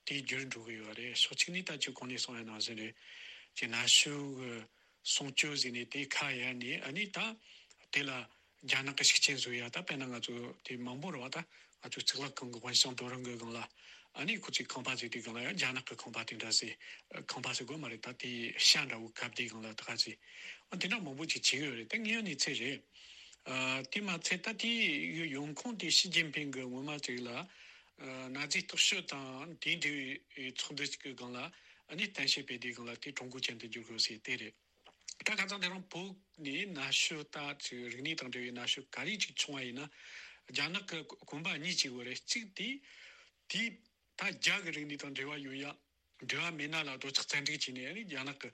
དེ་འགྱུར་འགྲོ་གི་ཡོད་རེད། ཕྱོགས་གཅིག་ནས་ད་ཅིག་གོང་ནས་གསུངས་ཡ་ནང་བཞིན་རེད། ཅིག་གནའ་ཤུལ་གི་སྲུང་སྐྱོབ་ཟེར་ནས་དེ་ཁ་གཡར་ནས་ཨ་ནི་ད་དེ་ལ་རྒྱ་ནག་གི་ཤུགས་རྐྱེན་བཟོ་ཡ། ད་དཔེར་ན་ང་ཚོ་དེ་མང་པོ་རེད་བ། ད་ང་ཚོའི་གཙུག་ལག་ཁང་གི་དབེན་ཞང་རྡོ་རིང་གི་སྒང་ལ་ཨ་ནི་ཁོ་ཚོས་ཁང་པ་བཟོས་དུས་སྒང་ལ་ཡང་རྒྱ་ནག་གི་ཁང་པ་དེ་འདྲ་ཟེར། ཁང་པ་ཟེར་དགོས་མ་རེད། ད་དེ་ཤ་འདྲ་བོ་བཀབ་དུས་སྒང་ལ་ད་ག་ཟེར། ཨ་དེ་འདྲ་མང་པོ་ཅིག་བྱེད་ཀྱི་ཡོད་རེད། ད་དངོས་ཡོད་གནས་ཚུལ་རེད། ཨ་དེ་མ་ཚད་ད་དེའི་ཡོང་ཁུངས་དེ་ཞི་ཅིན་ཕིང་གི་སྔོན་མ་ཅིག་ལ་ཨ་ན་ཛི་སྟོབས་ཤུགས་དང་དེའི་འབྲེལ་བའི་ཚོགས་འདུ་ཅིག་གི་སྒང་ལ་ཨ་ནི་གཏམ་བཤད་སྤེལ་དུས་སྒང་ལ་དེ་ཀྲུང་གོ་ཅན་དུ་བསྒྱུར་དགོས་ཟེར་དེ་རེད། ད་ཁ་སང་དེ་རིང་བོད་ནས་གནའ་ཤུལ་ད་ཅིག་རིག་གནས་དང་འབྲེལ་བའི་གནའ་ཤུལ་ག་རེ་ཅིག་བྱུང་བ་ཡིན་ན། རྒྱ་ནག་གི་གོམ་པ་གཉིས་ཅིག་ཡོད་རེད། གཅིག་དེ་དེ་ད་རྒྱ་གི་རིག་གནས་དང་འབྲེལ་བ་ཡོད་ཡ། འབྲེལ་བ་མེད་ན་ལ་རྡོ་ཆག་བཙན་འཁྲིག་བྱས་ནས་ཨ་ནི་རྒྱ་ནག་གི་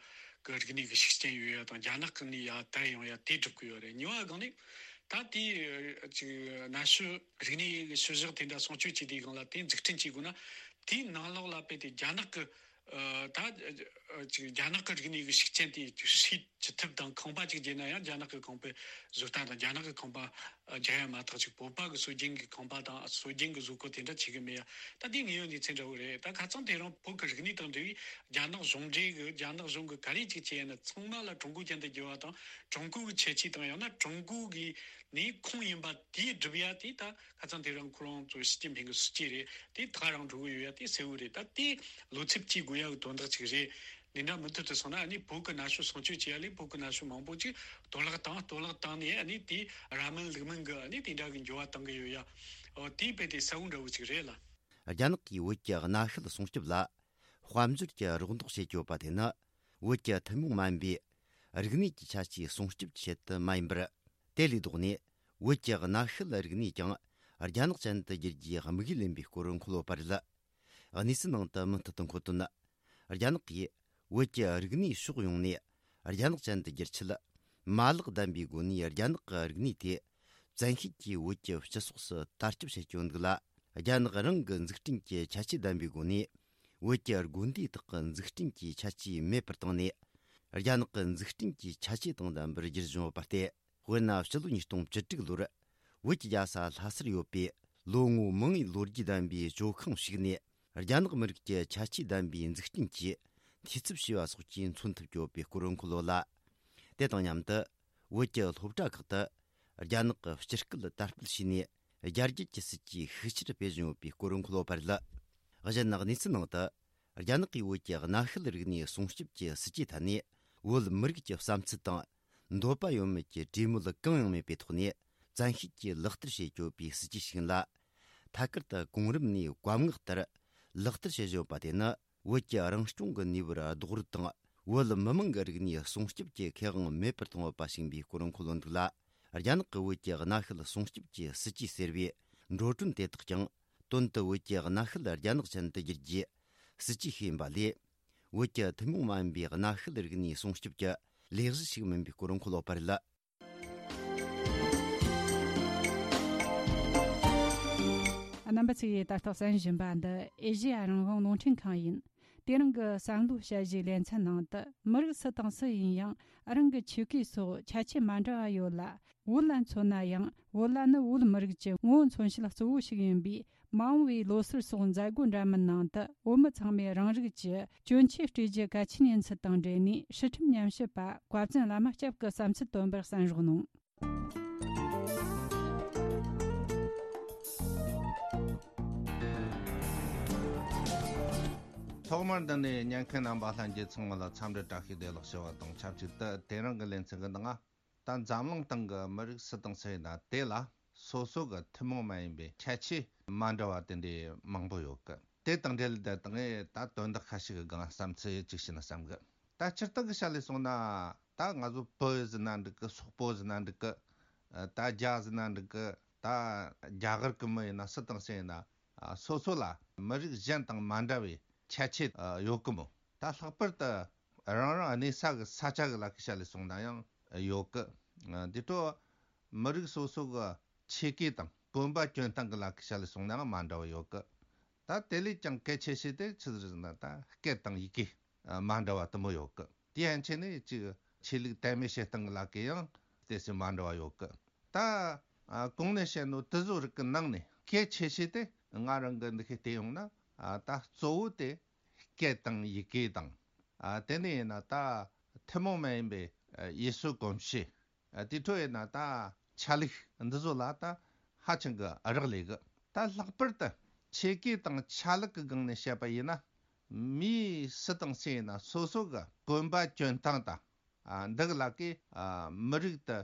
གི་རིག་གནས་ཀྱི་ཤུགས་རྐྱེན་ཡོད་ཡ་དང་། རྒྱ་ནག་གི་ནས་ཡ་དར་ཡོང་ཡ་དེ་སྒྲུབ་ཀྱི་ཡོད་རེད། གཉིས་པ་སྒང་ནས་ད་དེ་ཅིག་གནའ་ཤུལ་རིག་གནས་ཀྱི་ཤུལ་བཞག་དེ་འདྲ་སྲུང་སྐྱོབ་བྱེད་དུས་སྒང་ལ་དེ་འཛུགས་སྐྲུན་བྱེད་དགོས་ན། དེའི་ནང་ལོགས་ལ་དཔེ་དེ་རྒྱ་ནག་གི་ཨ་ད་ཨ་ཅིག་རྒྱ་ནག་གི་རིག་གནས་ཀྱི་ཤུགས་རྐྱེན་དེ་ཅིག་སྲུང་ཅི་ཐུབ་དང་། ཁང་པ་ཅིག་བརྒྱབ་ན་ཡང་རྒྱ་ནག་གི་ཁང་པའི་བཟོ་ལྟ་དང་། རྒྱ་ནག་གི་ཁང་པ་ཨ་རྒྱག་ཡ་མ་གཏོགས་ཅིག་བོད་པ་གི་སྲོལ་རྒྱུན་གྱི་ཁང་པ་དང་སྲོལ་རྒྱུན་གྱི་བཟོ་བཀོད་དེ་འདྲ་བྱེད་གི་མེད་ཡ། ད་དེ་དངོས་ཡོད་གནས་ཚུལ་འདྲ་བོ་རེད། ད་ཁ་སང་དེ་རིང་བོད་ཀྱི་རིག་གནས་དང་འབྲེལ་བའི་རྒྱ་ནག་གཞུང་འབྲེལ་གྱི་རྒྱ་ནག་གཞུང་གི་ག་རེ་ཅིག་བྱས་ན་ཚང་མ་ལ་ཀྲུང་གོ་ཅན་དུ་བསྒྱུར་བ་དང་། ཀྲུང་གོ་གི་ཁྱད་ཆོས་དང་ཡང་ན་ཀྲུང་གོ་གི་ནས་ཁུངས་ཡིན་པ་དེ་སྒྲུབ་ཡ་དེ་ད་ཁ་སང་དེ་རིང་ཁོ་རང་ཚོ་ཞི་ཅིན་ཕིང་གི་སྲིད་ཇུས་རེད། དེ་ཐག་རིང་འགྲོ་གི་ཡོད་ཡ་དེ་གསལ་བོ་རེད། ད་དེ་བློ་འཚབ་བྱེད་དགོས་ཡ་གི་དོན་དག་ཅིག་རེད། འདི་འདྲ་མུ་མཐུད་དུ་སོང་ན་ཨ་ནི་བོད་ཀྱི་གནའ་ཤུལ་སྲུང་སྐྱོབ་བྱེད་ཡ་ལས་བོད་ཀྱི་གནའ་ཤུལ་མང་པོ་ཅིག་གཏོར་བརླག་བཏང་། གཏོར་བརླག་བཏང་ནས་ཨ་ནི་དེ་ར་མིན་ལུག་མིན་གྱི་ཨ་ནི་དེ་འདྲ་གི་འགྱུར་བ་གཏང་གི་ཡོད་ཡ། འོ་དེ་དཔེ་དེ་གསལ་བོ་འདྲ་བོ་ཅིག་རེད་ལ། རྒྱ་ནག་གིས་བོད་ཀྱི་གནའ་ཤུལ་སྲུང་སྐྱོབ་ལ་དཔལ་འབྱོར་གྱི་རོགས་འདེགས་བྱེད་ཀྱི་ཡོད་པ་དེ་ནི། བོད་ཀྱི་ཐུན་མོང་མ་ཡིན་པའི་རིག་གནས་ཀྱི་ཁྱད་ཆོས་སྲུང་སྐྱོབ་ཀྱི་ཆེད་དུ་མ་ཡིན་པར། དེ་ལས་ལྡོག་ནས་བོད་ཀྱི་གནའ་ཤུལ་རིག་གནས་ཀྱང་རྒྱ་ནག་ཅན་དུ་བསྒྱུར་རྒྱུའི་དམིགས་ཡུལ་ཡིན་པའི་སྐོར་འཁོད་ཡོད་པ་རེད། གནས་ཚུལ་ནང་དུ་མུ་མཐུད་དུ་འཁོད་དོན། རྒྱ་ནག་གིས་བོད་ཀྱི་རིག་གནས་ཕྱོགས་ཡོངས་ནས་རྒྱ་ནག་ཅན་དུ་བསྒྱུར་ཆེད། མ་ལག་ལྡན་པའི་སྒོ་ནས་རྒྱ་ནག་གི་རིག་གནས་དེ་བཙན་ཤེད་ཀྱིས་བོད་ཀྱི་སྤྱི་ཚོགས་སུ་དར་ཁྱབ་བྱེད་ཀྱི་ཡོད་འདུག་ལ། རྒྱ་ནག་རང་གི་འཛུགས་སྐྲུན་གྱི་ཁྱད་ཆོས་ལྡན་པའི་སྒོ་ནས་བོད་ཀྱི་དགོན་སྡེ་དག་གི་འཛུགས་སྐྲུན་གྱི་ཁྱད་ཆོས་མེད་པར་བཏང་ནས། རྒྱ་ནག་གི་འཛུགས་སྐྲུན་གྱི་ཁྱད་ཆོས་དང་ལྡན་པར་བསྒྱུར་བཞིན་ཡོད་པ་སྟེ། དཔེར་ན། སྤྱི་ལོ་ཉིས་སྟོང་བཅུ་དྲུག་ལོར་བོད་ཀྱི་རྒྱལ་ས་ལྷ་སར་ཡོད་པའི་ལོ་ངོ་མང་བའི་ལོ་རྒྱུས་ལྡན་པའི་ཇོ་ཁང་ཞིག་ནས། རྒྱ་ནག་མི་རིགས་ཀྱི་ཁྱད་ཆོས་ལྡན་པའི་འཛུགས་སྐྲུན་གྱི་འཐུས་ཚབ་བྱས་པ་སོགས་ཀྱིས་མཚོན་ཐུབ་ཀྱི་ཡོད་པའི་སྐོར་འཁོད་ཡོད་ལ། དེ་དང་མཉམ་དུ། བོད་ཀྱི་སློབ་གྲྭ་ཁག་ཏུ་རྒྱ་ནག་གི་སྤྱི་སྐད་དར་སྤེལ་བྱས་ནས། རྒྱ་སྐད་ཀྱི་སྲིད་ཇུས་ཤུགས་ཆེར་སྤེལ་བཞིན་ཡོད་པའི་སྐོར་འཁོད་ཡོད་པ་རེད། གཞན་གནས་ཚུལ་ནང་དུ། རྒྱ་ནག་གིས་བོད་ཀྱི་གནའ་ཤུལ་རིག་གནས་སྲུང་སྐྱོབ་ཀྱི་སྲིད་ཇུས་ཐད་ནས། བོད་མི་རིགས་ཀྱི་བསམ་ཚུལ་དང་འདོད་པ་ཡོད་མེད་ཀྱི་གྲོས་མོལ་གང་ཡང་མེད་པའི་ཐོག་ནས། བཙན་ཤེད་ཀྱིས་ལག་བསྟར་བྱེད་ཆོག་པའི་སྲིད་ཇུས་ཤིག་ཡིན་ལ། ཐད་ཀར་དུ་གོང་རིམ་ནས་བཀའ་མངགས་ལྟར་ལག་བསྟར་བྱེད་བཞིན་ཡོད་པ་དེ་ནི། བོད་ཀྱི་རང་སྐྱོང་གི་ནུས་པར་རྡོག་རོལ་དང་། བོད་མི་མང་གི་རིག་གནས་སྲུང་སྐྱོབ་ཀྱི་ཁེ་དབང་མེད་པར་གཏོང་བ་ཞིག་ཡིན་པའི་སྐོར་འཁོད་ཡོད་འདུག་ལ། རྒྱ་ནག་གི་བོད་ཀྱི་གནའ་ཤུལ་སྲུང་སྐྱོབ་ཀྱི་སྲིད་ཇུས་ཟེར་བའི་འགྲོ་གྲོན་དེ་དག་ཀྱང་། དོན་དུ་བོད་ཀྱི་གནའ་ཤུལ་རྒྱ་ནག་ཅན་དུ་བསྒྱུར་རྒྱུའི་སྲིད་ཇུས་ཤིག་ཡིན་པ་ལས། བོད་ཀྱི་ཐུན་མོང་མ་ཡིན་པའི་གནའ་ཤུལ་རིག་གནས་སྲུང་སྐྱོབ་ཀྱི་ལས་གཞི་ཞིག་མིན་པའི་སྐོར་འཁོད་ཡོད་པ་རེད། རྣམ་པ་ཚོས་ད་ལྟ་གསན་བཞིན་པ་འདི་ཨེ་ཤེ་ཡ་རང་དབང་རླུང་འཕྲིན་ཁང་ཡིན། དེ་རིང་གི་བསམ་བློ་དཔྱད་གཞིའི་ལེ་ཚན་ནང་དུ། མི་རིགས་སུ་དང་སུ་ཡིན་ཡང་རང་གི་ཆོས་སྐད་སོགས་ཁྱད་ཆོས་མ་འདྲ་བ་ཡོད་ལ། བོད་ལ་མཚོན་ན་ཡང་། བོད་ལྭ་ནི་བོད་མི་རིགས་ཀྱི་ངོ་བོ་མཚོན་བྱེད་གཙོ་བོ་ཞིག་ཡིན་པས། མ་འོངས་པའི་ལོ་སར་སོགས་མཛད་སྒོ་འདྲ་མིན་ནང་དུ། བོད་མི་ཚང་མས་རང་རིགས་ཀྱི་གྱོན་ཆས་སྤྲས་རྒྱུ་གལ་ཆེན་ཡིན་ཚུལ་དང་འབྲེལ་ནས། སྲིད་ཁྲིམས་ཉམས་ཞིབ་པ་བཀའ་བཙུན་བླ་མ་སྐྱབས་ཀྱི་བསམ་ཚུལ་བཏོན་པར་གསན་རོགས་གནང་། ཐོག་མར་འདི་ནས་ཉན་མཁན་རྣམ་པ་ལྷན་རྒྱས་ཚང་མ་ལ་འཚམས་འདྲི་བཀྲ་ཤིས་བདེ་ལེགས་ཞུ་བ་དང་ཆབས་ཅིག་ཏུ། དེ་རིང་གི་ལེ་ཚན་གྱི་ནང་ད་འཛམ་གླིང་སྟེང་གི་མི་རིགས་སུ་དང་སུ་ཡིན་ན། དེ་ལ་སོ་སོ་གི་ཐུན་མོང་མ་ཡིན་པའི་ཁྱད་ཆོས་མ་འདྲ་བ་དེ་འདྲའི་མང་པོ་ཡོད་གི། དེ་དང་འབྲེལ་ཏེ་ད་ངས་ད་དོན་དག་ཁ་ཤས་ཀྱི་སྒང་བསམ་ཚུལ་ཅིག་བཤད་ན་བསམ་གི། ད་སྤྱིར་བཏང་གི་ཆ་ལས་སོང་ན། ད་ང་ཚོ་བོད་ཟེར་ན་འགྲིག་གི། སོག་པོ་ཟེར་ན་འགྲིག་གི། ད་རྒྱ་ཟེར་ན་འགྲིག་གི། ད་རྒྱ་གར་གི་མི་ཡིན་ན། སུ་དང་སུ་ཡིན་ན། སོ་སོ་ལ་མི་རིགས་གཞན་དང་མ་འདྲ་བའི་ཁྱད་ཆོས་ཡོད་གི་མོ། ད་ལྷག་པར་དུ་རང་རང་གནས་ས་གི་ས་ཆ་གི་ལ་ཁའི་ཆ་ལས་སོང་ན་ཡང་ཡོད་གི། དེ་འཕྲོ་མི་རིགས་སོ་སོ་གི་ཆས་གོས་དང་གོན་པ་གྱོན་སྟངས་གི་ལ་ཁའི་ཆ་ལས་སོང་ན་ཡང་མ་འདྲ་བ་ཡོད་གི། ད་དེ་ལས་ཀྱང་གལ་ཆེ་ཤོས་དེ་ཆི་ཟིག་ཟེར་ན། ད་སྐད་དང་ཡི་གེ་མ་འདྲ་བ་དུ་མོ་ཡོད་གི། དེ་ཡན་ཆད་ནས་ཅིག་ཆོས་ལུགས་དད་མོས་བྱེད་སྟངས་གི་ལ་ཁའི་ཡང་དེ་སུ་མ་འདྲ་བ་ཡོད་གི། ད་གོང་ནས་བཤད་ནོ་དེ་ཚོ་རིགས་གི་ནང་ནས་གལ་ཆེ་ཤོས་དེ་ང་རང་གི་འདི་ཁའི་བལྟས་ཡོང་ན། ད་གཙོ་བོ་དེ་སྐད་དང་ཡི་གེ་དང་། ཨ། དེ་ནས་ཡིན་ན་ད་ཐུན་མོང་མ་ཡིན་པའི་ཡུལ་སྲོལ་གོམས་གཤིས། ཨ། དེ་འཕྲོ་ཡིན་ན་ད་ཆ་ལུགས་འདི་ཚོ་ལ་ད་ཧ་ཅང་གི་རག་ལས་གི། ད་ལྷག་པར་དུ་ཆས་གོས་དང་ཆ་ལུགས་ཀྱི་སྒང་ནས་བཤད་པ་ཡིན་ན། མི་སུ་དང་སུ་ཡིན་ན་སོ་སོ་གི་གོན་པ་གྱོན་སྟངས་དང་། ཨ། འདི་གི་ལ་ཀའི། ཨ། མི་རིགས་དེ་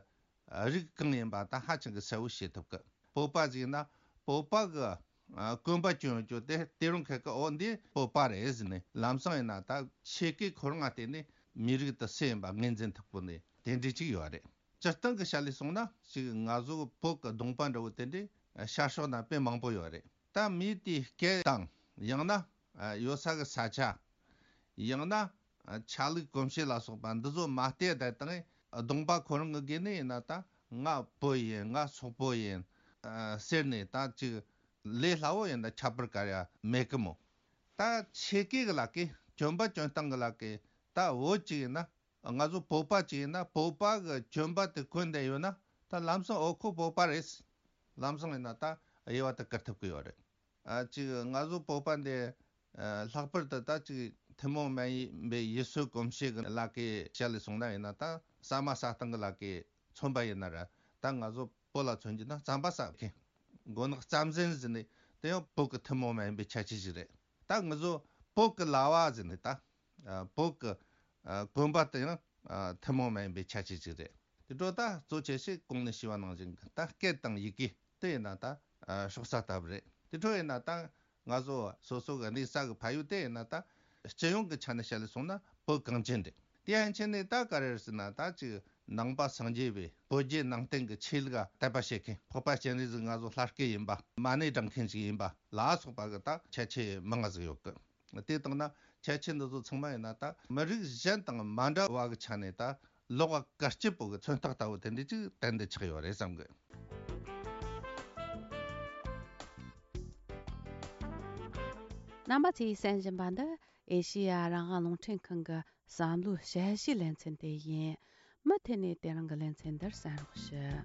རིགས་གང་ཡིན་པ་ད་ཧ་ཅང་གི་གསལ་བོ་ཤེས་ཐུབ་གི། བོད་པ་ཟིག་ཡིན་ན་བོད་པ་གི། ཨ། གོན་པ་གྱོན་རྒྱུ་དེ་དེ་རུང་ཁ་ཁ་འོ་འདི་བོད་པ་རེད་ཟེར་ནས། ལམ་སང་ཡིན་ན་ད་ཆས་གོས་ཁོ་རང་ང་བལྟས་ནས་མི་རིགས་དེ་སུ་ཡིན་པ་ངོས་འཛིན་ཐུབ་གོ་ནས་དེ་འདྲ་ཅིག་ཡོད་རེད། སྤྱིར་བཏང་གི་ཆ་ལས་སོང་ན་ཅིག་ང་ཚོ་བོད་གི་གདོང་པ་འདྲ་བོ་དེ་འདྲའི་ཤར་ཕྱོགས་ན་དཔེ་མང་པོ་ཡོད་རེད། ད་མི་དེའི་སྐད་དང་། ཡང་ན་ཡོད་ས་གི་ས་ཆ། ཡང་ན་ཆ་ལུགས་གོམས་གཤིས་ལ་སོགས་པ་འདི་ཚོ་མ་བལྟས་བསྡད་བཏང་། གདོང་པ་ཁོ་རང་གི་སྒོ་ནས་ཡིན་ན་ད་ང་བོད་ཡིན། ང་སོག་པོ་ཡིན། ཟེར་ནས་ད་ཅིག་ལས་སླ་བོ་ཡིན་ན་ཁྱད་པར་ག་རེ་ཡང་མེད་གི་མོ། ད་ཆས་གོས་གི་ལ་ཀའི་གྱོན་པ་གྱོན་སྟངས་གི་ལ་ཀའི་ད་བོད་ཅིག་ཡིན་ན། ང་ཚོ་བོད་པ་ཅིག་ཡིན་ན་བོད་པ་གི་གྱོན་པ་དེ་གོན་བསྡད་ཡོད་ན། ད་ལམ་སང་འོ་ཁོ་བོད་པ་རེད། ལམ་སང་ཡིན་ན་ད་དབྱེ་བ་དེ་བཀར་ཐུབ་གི་ཡོད་རེད། ཨ། ཅིག་ང་ཚོ་བོད་པ་འདི། ཨ། ལྷག་པར་དུ་ད་ཅིག་ཐུན་མོང་མ་ཡིན་པའི་ཡུལ་སྲོལ་གོམས་གཤིས་ཀྱི་ལ་ཀའི་ཆ་ལས་སོང་ན་ཡིན་ན། ད་ཟ་མ་ཟ་སྟངས་ཀྱི་ལ་ཀའི་མཚོན་པ་ཡིན་ན་ར། ད་ང་ཚོ་བོད་ལ་མཚོན་རྒྱུ་ན་རྩམ་པ་ཟ་མཁན། མགོ་ནག་རྩམ་ཟན་ཟེར་ནས་དེ་ཡང་བོད་ཀྱི་ཐུན་མོང་མ་ཡིན་པའི་ཁྱད་ཆོས་ཤིག་རེད། ད་ང་ཚོ་བོད་ཀྱི་ལྭ་བ་ཟེར་ནས་ད། ཨ། བོད་ཀྱི། ཨ། གོན་པ་དེ་ཡང་། ཨ། ཐུན་མོང་མ་ཡིན་པའི་ཁྱད་ཆོས་ཤིག་རེད། དེ་འཕྲོ་ད་གཙོ་ཆེ་ཤོས་གོང་ནས་ཞུས་པ་ནང་བཞིན་གྱི་ད་སྐད་དང་ཡི་གེ་དེ་ཡིན་ན་ད། ཨ། ཕྱོགས་ས་ལྟ་བུ་རེད། དེ་འཕྲོ་ཡིན་ན་ད་ང་ཚོ་སོ་སོ་གི་གནས་ས་གི་ཕ་ཡུལ་དེ་ཡིན་ན་ད་སྤྱི་ཡོངས་ཀྱི་ཆ་ནས་བཤད་ལས་སོང་ན་བོད་གངས་ཅན་རེད། དེ་ཡན་ཆད་ནས་ད་ག་རེ་རེད་ཟེར་ན། ད་ཅིག་ནང་པ་སངས་རྒྱས་པའི་བོད་བརྒྱུད་ནང་བསྟན་གྱི་ཆོས་ལུགས་དད་པ་བྱེད་མཁན། འཕགས་པ་སྤྱན་རས་གཟིགས་ང་ཚོ་ལྷ་སྐལ་ཡིན་པ། མ་ཎི་བགྲང་མཁན་ཞིག་ཡིན་པ་ལ་སོགས་པ་གི་ད་ཁྱད་ཆོས་མང་ང་ཟིག་ཡོད་གི། དེ་བཏང་ན་ཁྱད་ཆོས་འདི་ཚོ་ཚང་མ་ཡིན་ན་ད་མི་རིགས་གཞན་དང་མ་འདྲ་བ་གི་ཆ་ནས་ད་ལོགས་ཀ་སྐར་སྐྱིད་པོ་གི་མཚོན་རྟགས་ལྟ་བུ་དེ་འདྲ་ཅིག་ཏན་ཏན་ཆགས་ཡོད་རེད་བསམ་གི། རྣམ་པ་ཚོས་གསན་བཞིན་པ་འདི་ཨེ་ཤེ་ཡ་རང་དབང་རླུང་འཕྲིན་ཁང་གི་བསམ་བློའི་དཔྱད་གཞིའི་ལེ་ཚན་དེ་ཡིན། མུ་མཐུད་ནས་དེ་རིང་གི་ལེ་ཚན་འདིར་གསན་རོགས་ཞུ།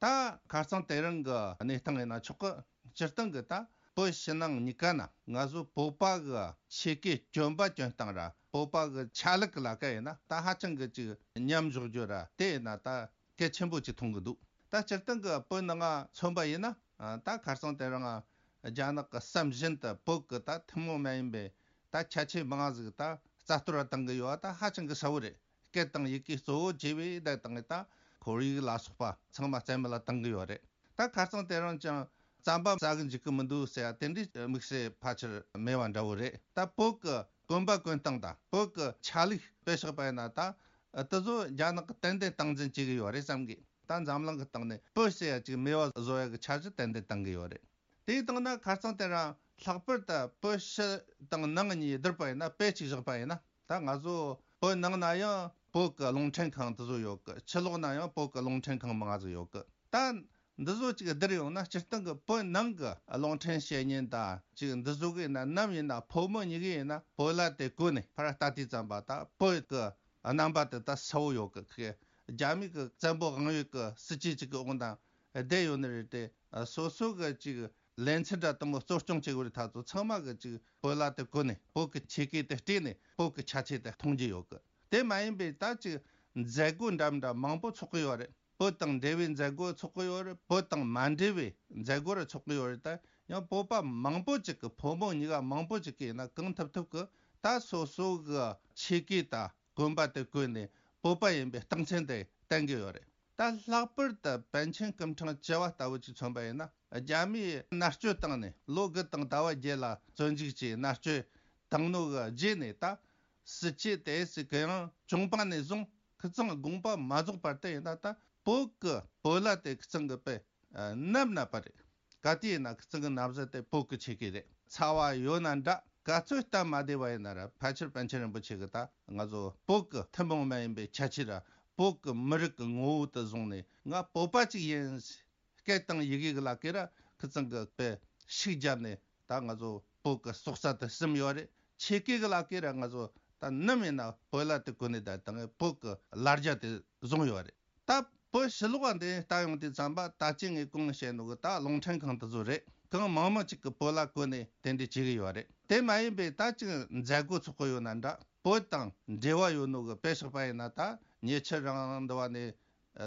ད་ཁ་སང་དེ་རིང་གི་གནས་སྟངས་ཡིན་ན་ཆོག་གི། སྤྱིར་བཏང་གི་ད་བོད་ཕྱི་ནང་གཉིས་ཀ་ན་ང་ཚོ་བོད་པ་གི་ཆས་གོས་གྱོན་པ་གྱོན་སྟངས་ར། བོད་པ་གི་ཆ་ལུགས་གི་ལ་ཀ་ཡིན་ན་ད་ཧ་ཅང་གི་ཅིག་མཉམ་འཇོག་རྒྱུ་ར། དེ་ཡིན་ན་ད་གལ་ཆེན་པོ་ཅིག་མཐོང་གི་འདུག། ད་སྤྱིར་བཏང་གི་བོད་ནང་ང་མཚོན་པ་ཡིན་ན། ད་ཁ་སང་དེ་རིང་རྒྱ་ནག་གི་བསམ་བཞིན་དུ་བོད་ཀྱི་ད་ཐུན་མོང་མ་ཡིན་པའི་ད་ཁྱད་ཆོས་མང་ཟིག་ད་རྩ་གཏོར་བཏང་གི་ཡོད་པ་ད་ཧ་ཅང་གི་གསལ་བོ་རེད། སྐད་དང་ཡི་གེ་གཙོ་བོ་བྱས་པའི་ད་དང་ད་ཁོར་ཡུག་ལ་སོགས་པ་ཚང་མ་རྩ་མེད་ལ་བཏང་གི་ཡོད་རེད། ད་ཁ་སང་དེ་རིང་ཀྱང་རྩམ་པ་ཟ་གི་འཇུག་གི་མི་འདུག་ཟེར་ཡ་དེ་འདྲའི་དམིགས་བསལ་ཕལ་ཆེར་མེད་པ་འདྲ་བོ་རེད། ད་བོད་ཀྱི་གོན་པ་གོན་སྟངས་དང་བོད་ཀྱི་ཆ་ལུགས་དཔེ་བཞག་པ་ཡིན་ན་ད་དེ་ཚོ་རྒྱ་ནག་གི་ཏན་ཏན་སྟངས་འཛིན་བྱེད་ཀྱི་ཡོད་རེད་བསམ་གི། ད་འཛམ་གླིང་གི་སྟེང་ནས་བོད་ཟེར་ཡ་ཅིག་མེད་པ་བཟོ་ཡ་གི་འཆར་གཞི་ཏན་ཏན་བཏང་གི་ཡོད་རེད། དེའི་སྟེང་ན་ཁ་སང་དེ་རིང་ལྷག་པར་དུ་བོད་ཕྱི་དང་ནང་གཉིས་བསྡུར་བ་ཡིན་ན་དཔེ་གཅིག་བཞག་པ་ཡིན་ན་ད་ང་ཚོ་བོད་ནང་ན་ཡང་བོད་ཀྱི་རླུང་འཕྲིན་ཁང་དེ་ཚོ་ཡོད་གི། ཕྱི་ལོགས་ན་ཡང་བོད་ཀྱི་རླུང་འཕྲིན་ཁང་མང་ང་ཟིག་ཡོད་གི། ད་འདི་ཚོ་ཅིག་བསྡུར་ཡོང་ན་སྤྱིར་བཏང་གི་བོད་ནང་གི་རླུང་འཕྲིན་བཤད་མཁན་དང་ཅིག་འདི་ཚོ་གི་ཡིན་ན་ནམ་ཡིན་ན་ཕོ་མོ་གཉིས་ཀྱི་ཡིན་ན་བོད་ལྭ་དེ་གོན་ནས་ཕར་ལྟ་དུས་ཙམ་པ་ད་བོད་ཀྱི་རྣམ་པ་དེ་ད་གསལ་བོ་ཡོད་གི། ཁི་རྒྱ་མི་གི་བཙན་པོ་དབང་ཡོད་གི་སྲིད་ཇུས་ཅིག་གི་འོག་ན་བསྡད་ཡོད་ནི་རེད་དེ། སོ་སོ་གི་ཅིག་ལེ་ཚན་འདྲ་དེ་མོ་གཙོ་སྐྱོང་བྱེད་དགོས་རེད། ད་ཚོ་ཚང་མ་གི་ཅིག་བོད་ལྭ་དེ་གོན་ནས་བོད་ཀྱི་ཆས་གོས་དེ་སྤྲས་ནས་བོད་ཀྱི་ཆ་ཆས་དེ་མཐོང་རྒྱུ་ཡོད་གི། དེ་མ་ཡིན་པའི་ད་ཅིག་མཛད་སྒོ་འདྲ་མི་འདྲ་མང་པོ་ཚོགས་གི་ཡོད་རེད། བོད་དང་འབྲེལ་བའི་མཛད་སྒོ་ཚོགས་གི་ཡོད་རེད། བོད་དང་མ་འབྲེལ་བའི་མཛད་སྒོ་ར་ཚོགས་གི་ཡོད་རེད། ད་ཡང་བོད་པ་མང་པོ་ཅིག་གི་ཕོ་མོ་གཉིས་ཀ་མང་པོ་ཅིག་གིས་ཡིན་ན་གང་ཐུབ་ཐུབ་གི་ད་སོ་སོ་གི་ཆས་གོས་དང་གོན་པ་དེ་གོན་ནས་བོད་པ་ཡིན་པའི་རྟགས་མཚན་དེ་བསྟན་གི་ཡོད་རེད། ད་ལྷག་པར་དུ་པཎ་ཆེན་སྐུ་ཕྲེང་བཅུ་བ་ལྟ་བུ་ཅིག་མཚོན་པ་ཡིན་ན་རྒྱ་མིའི་མནར་གཅོད་བཏང་ནས་ལོ་དགུ་དང་ཟླ་བ་བརྒྱད་ལ་བཙོན་འཇུག་བྱས་མནར་གཅོད་བཏང་ནོ་གི་རྗེས་ནས་ད་སྲིད་ཇུས་དེ་སྲིད་གི་ཡང་བྱུང་པ་ནས་བཟུང་ཁི་ཚང་དགོངས་པ་མ་རྫོགས་བར་དུ་ཡིན་ན་ད་བོད་གི་བོད་ལྭ་དེ་ཁི་ཚང་གི་དཔེ་ནམ་ན་པ་རེད། ག་དུས་ཡིན་ན་ཁི་ཚང་གི་ན་བཟའ་དེ་བོད་གི་ཆས་གོས་རེད། ཚ་བ་ཡོད་ན་འདྲ་ག་ཚོད་སྟབས་མ་བདེ་བ་ཡིན་ན་ར་ཕལ་ཆེར་པཎ་ཆེན་རིན་པོ་ཆེ་གི་ད་ང་ཚོ་བོད་གི་ཐུན་མོང་མ་ཡིན་པའི་ཁྱད་ཆོས་ར་བོད་གི་མི་རིགས་གི་ངོ་བོ་དེ་བཟུང་ནས་ང་བོད་པ་ཅིག་ཡིན། སྐད་དང་ཡི་གེ་གི་ལ་ཀེ་ར་ཁི་ཚང་གི་དཔེ་ཤུགས་བརྒྱབ་ནས་ད་ང་ཚོ་བོད་གི་སྲོག་རྩ་དེ་ཟིན་ཡོད་རེད། ཆས་གོས་གི་ལ་ཀེ་ར་ང་ཚོ་ད་ནམ་ཡིན་ན་བོད་ལྭ་དེ་གོན་ནས་ད་ད་ངས་བོད་གི་ལ་རྒྱ་དེ་བཟུང་ཡོད་རེད། ད་བོད་ཕྱི་ལོགས་པ་འདི་ལྟ་ཡོང་དུས་ཙམ་པ་ད་ཅི་ངས་གོང་བཤད་ནོ་གི་ད་རླུང་འཕྲིན་ཁང་དེ་ཚོ་རེད། གང་མང་མང་ཅིག་གི་བོད་ལྭ་གོན་ནས་དེ་འདྲ་བྱེད་གི་ཡོད་རེད། དེ་མ་ཡིན་པའི་ད་ཅིག་མཛད་སྒོ་ཚོགས་གི་ཡོད་ན་འདྲ་བོད་དང་འབྲེལ་བ་ཡོད་ནོ་གི་དཔེ་བཞག་པ་ཡིན་ན་ད་ཉེ་ཆར་རང་འདི་བ་ནས་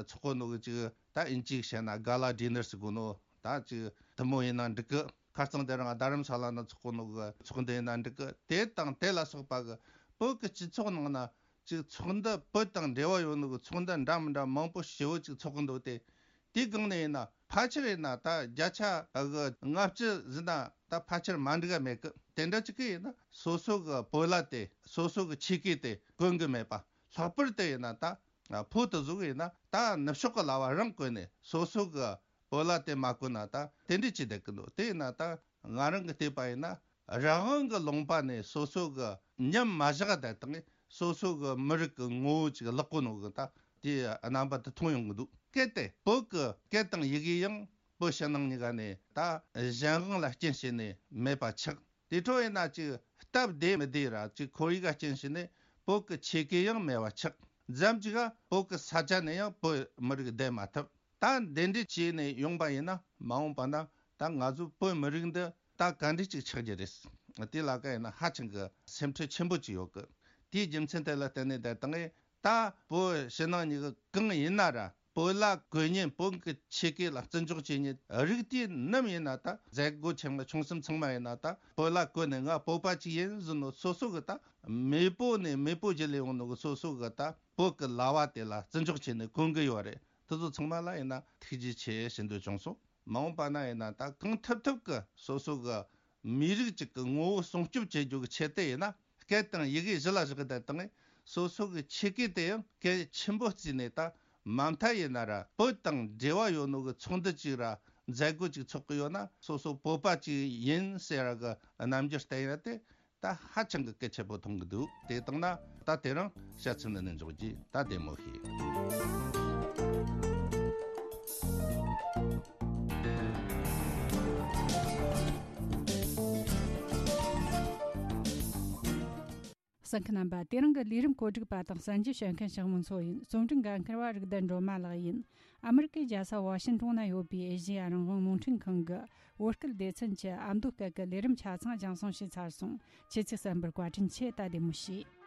ཚོགས་གོ་ནོ་གི་ཅིག་ད་ཨིན་ཇིའི་བཤད་ན་ག་ལ་ཌི་ནར་ཟེར་གོ་ནོ་ད་ཅིག་དེ་མོ་ཡིན་ན་འགྲིག་གི། ཁ་རྩང་དེ་རིང་རྡ་རམ་ས་ལ་ན་ཚོགས་གོ་ནོ་གི་ཚོགས་འདུ་ཡིན་ན་འགྲིག་གི། དེ་དང་དེ་ལ་སོགས་པ་གི་བོད་ཀྱི་སྤྱི་ཚོགས་ནང་ན་ཅིག་ཚོགས་འདུ་བོད་དང་འབྲེལ་བ་ཡོད་ནོ་གི་ཚོགས་འདུ་འདྲ་མི་འདྲ་མང་པོ་ཞེ་བོ་ཅིག་ཚོགས་གི་འདུག་སྟེ། དེའི་སྒང་ནས་ཡིན་ན་ཕལ་ཆེར་ཡིན་ན་ད་བརྒྱ་ཆ་གི་ལྔ་བཅུ་ཟིན་ན་ད་ཕལ་ཆེར་མ་འགྲིག་ག་མེད་གི། དེ་འདྲ་ཅིག་གི་ཡིན་ན་སོ་སོ་གི་བོད་ལྭ་དེ་སོ་སོ་གི་ཆས་གོས་དེ་གོན་གི་མེད་པ། ལྷག་པར་དུ་ཡིན་ན་ད་ཕོ་དེ་ཟུག་ཡིན་ན་ད་ནུབ་ཕྱོགས་གི་ལྭ་བ་རང་གོན་ནས་སོ་སོ་གི་བོད་ལྭ་དེ་མ་གོན་ན་ད་དེ་འདྲ་ཅིག་བསྡད་གི་འདུག། དེ་ཡིན་ན་ད་ང་རང་གི་བལྟས་པ་ཡིན་ན་རང་དབང་གི་ལུང་པ་ནས་སོ་སོ་གི་ཉམས་མ་བཞག་བསྡད་དང་སོ་སོ་གི་མི་རིགས་གི་ངོ་བོ་ཅིག་བརླག་གོ་ནོ་གི་ད་དེ་རྣམ་པ་དེ་མཐོང་ཡོང་གི་འདུག། གལ་ཏེ་བོད་གི་སྐད་དང་ཡི་གེ་ཡང་བོད་ཕྱི་ནང་གཉིས་ཀ་ནས་ད་གཞན་དབང་ལ་རྐྱེན་བྱས་ནས་མེད་པ་ཆགས། དེ་འཕྲོ་ཡིན་ན་ཅིག་སྟབས་བདེ་མི་བདེ་ར་ཅིག་ཁོར་ཡུག་ག་རྐྱེན་བྱས་ནས་བོད་གི་ཆས་གོས་ཡང་མེད་པ་ཆགས། མཚམས་ཅིག་ག་བོད་གི་ས་ཆ་ནས་ཡང་བོད་མི་རིགས་བསྡད་མ་ཐུབ། ད་འདི་འདྲ་བྱས་ནས་ཡོང་པ་ཡིན་ན་མ་འོངས་པ་ན་ད་ང་ཚོ་བོད་མི་རིགས་འདི་ད་ག་འདྲ་ཅིག་ཆགས་རྒྱུ་རེད། དེ་ལ་ཀ་ཡིན་ན་ཧ་ཅང་གི་སེམས་ཁྲལ་ཆེན་པོ་ཅིག་ཡོད་གི། དེའི་རྒྱུ་མཚན་དེ་ལ་བརྟེན་ནས་ད་དང་ད་བོད་ཕྱི་ནང་གཉིས་ཀ་གང་ཡིན་ན་ར་བོད་ལྭ་གོན་མཁན་བོད་ཀྱི་ཆས་གོས་ལ་བརྩི་འཇོག་བྱེད་མཁན་རིགས་དེ་ནམ་ཡིན་ན་ད་མཛད་སྒོ་ཆེན་མོ་ཆུང་གསུམ་ཚང་མ་ཡིན་ན་ད་བོད་ལྭ་གོན་ནས་ང་བོད་པ་ཅིག་ཡིན་ཟེར་ནོ་སོ་སོ་གི་ད་མེས་པོ་ནས་མེས་པོ་བརྒྱུད་ལས་ཡོང་ནོ་གི་སོ་སོ་གི་ད་བོད་ཀྱི་ལྭ་བ་དེ་ལ་བརྩི་འཇོག་བྱས་ནས་གོན་གི་ཡོད་རེད། དེ་ཚོ་ཚང་མ་ལ་ཡིན་ན་ཐུགས་རྗེ་ཆེ་ཞུ་འདོད་བྱུང་སོང་། མ་འོངས་པ་ན་ཡིན་ན་ད་གང་ཐུབ་ཐུབ་ཀྱི་སོ་སོ་གི་མི་རིགས་གཅིག་གི་ངོ་བོ་སྲུང་སྐྱོབ་བྱེད་རྒྱུ་གི་ཆེད་དུ་ཡིན་ན་སྐད་དང་ཡི་གེ་གཞི་ལ་བཞག་གི་བསྡད་དང་སོ་སོ་གི་ཆས་གོས་དེ་ཡང་གལ་ཆེན་པོ་བརྩིས་ནས་ད་མ་མཐའ་ཡིན་ན་ར་བོད་དང་འབྲེལ་བ་ཡོད་ནོ་གི་ཚོགས་འདུ་གཅིག་ར་མཛད་སྒོ་གཅིག་ཚོགས་གི་ཡོད་ན་སོ་སོ་བོད་པ་གཅིག་ཡིན་ཟེར་ར་གི་རྣམ་འགྱུར་བསྟན་ཡ་དེ། ད་ཧ་ཅང་གི་གལ་ཆེན་པོ་མཐོང་གི་འདུག། དེ་བཏང་ན་ད་དེ་རིང་བཤད་ཚུལ་འདི་ནས་འཇོག་རྒྱུ་ད་བདེ་མོ་ཞིག། གསན་མཁན་རྣམ་པ། དེ་རིང་གི་ལས་རིམ་གོ་སྒྲིག་པ་དང་གསན་རྒྱུ་བྱེད་མཁན་ཞང་མུན་མཚོ་ཡིན། རྩོམ་སྒྲིག་འགན་འཁུར་བ་རིག་ལྡན་སྒྲོལ་མ་ལགས་ཡིན། ཨ་མི་རི་ཀའི་རྒྱལ་ས་ཝ་ཤིན་ཏོན་ན་ཡོད་པའི་ཨེ་ཤེ་ཡ་རང་དབང་རླུང་འཕྲིན་ཁང་གི་བོད་སྐད་སྡེ་ཚན་གྱི་ཨ་མདོ་སྐད་ཀྱི་ལས་རིམ་ཆ་ཚང་རྒྱང་སྲིང་བྱས་ཚར་སོང་། ཁྱེད་ཚོས་གསན་པར་བཀའ་དྲིན་ཆེ། ད་བདེ་མོ་བྱོས།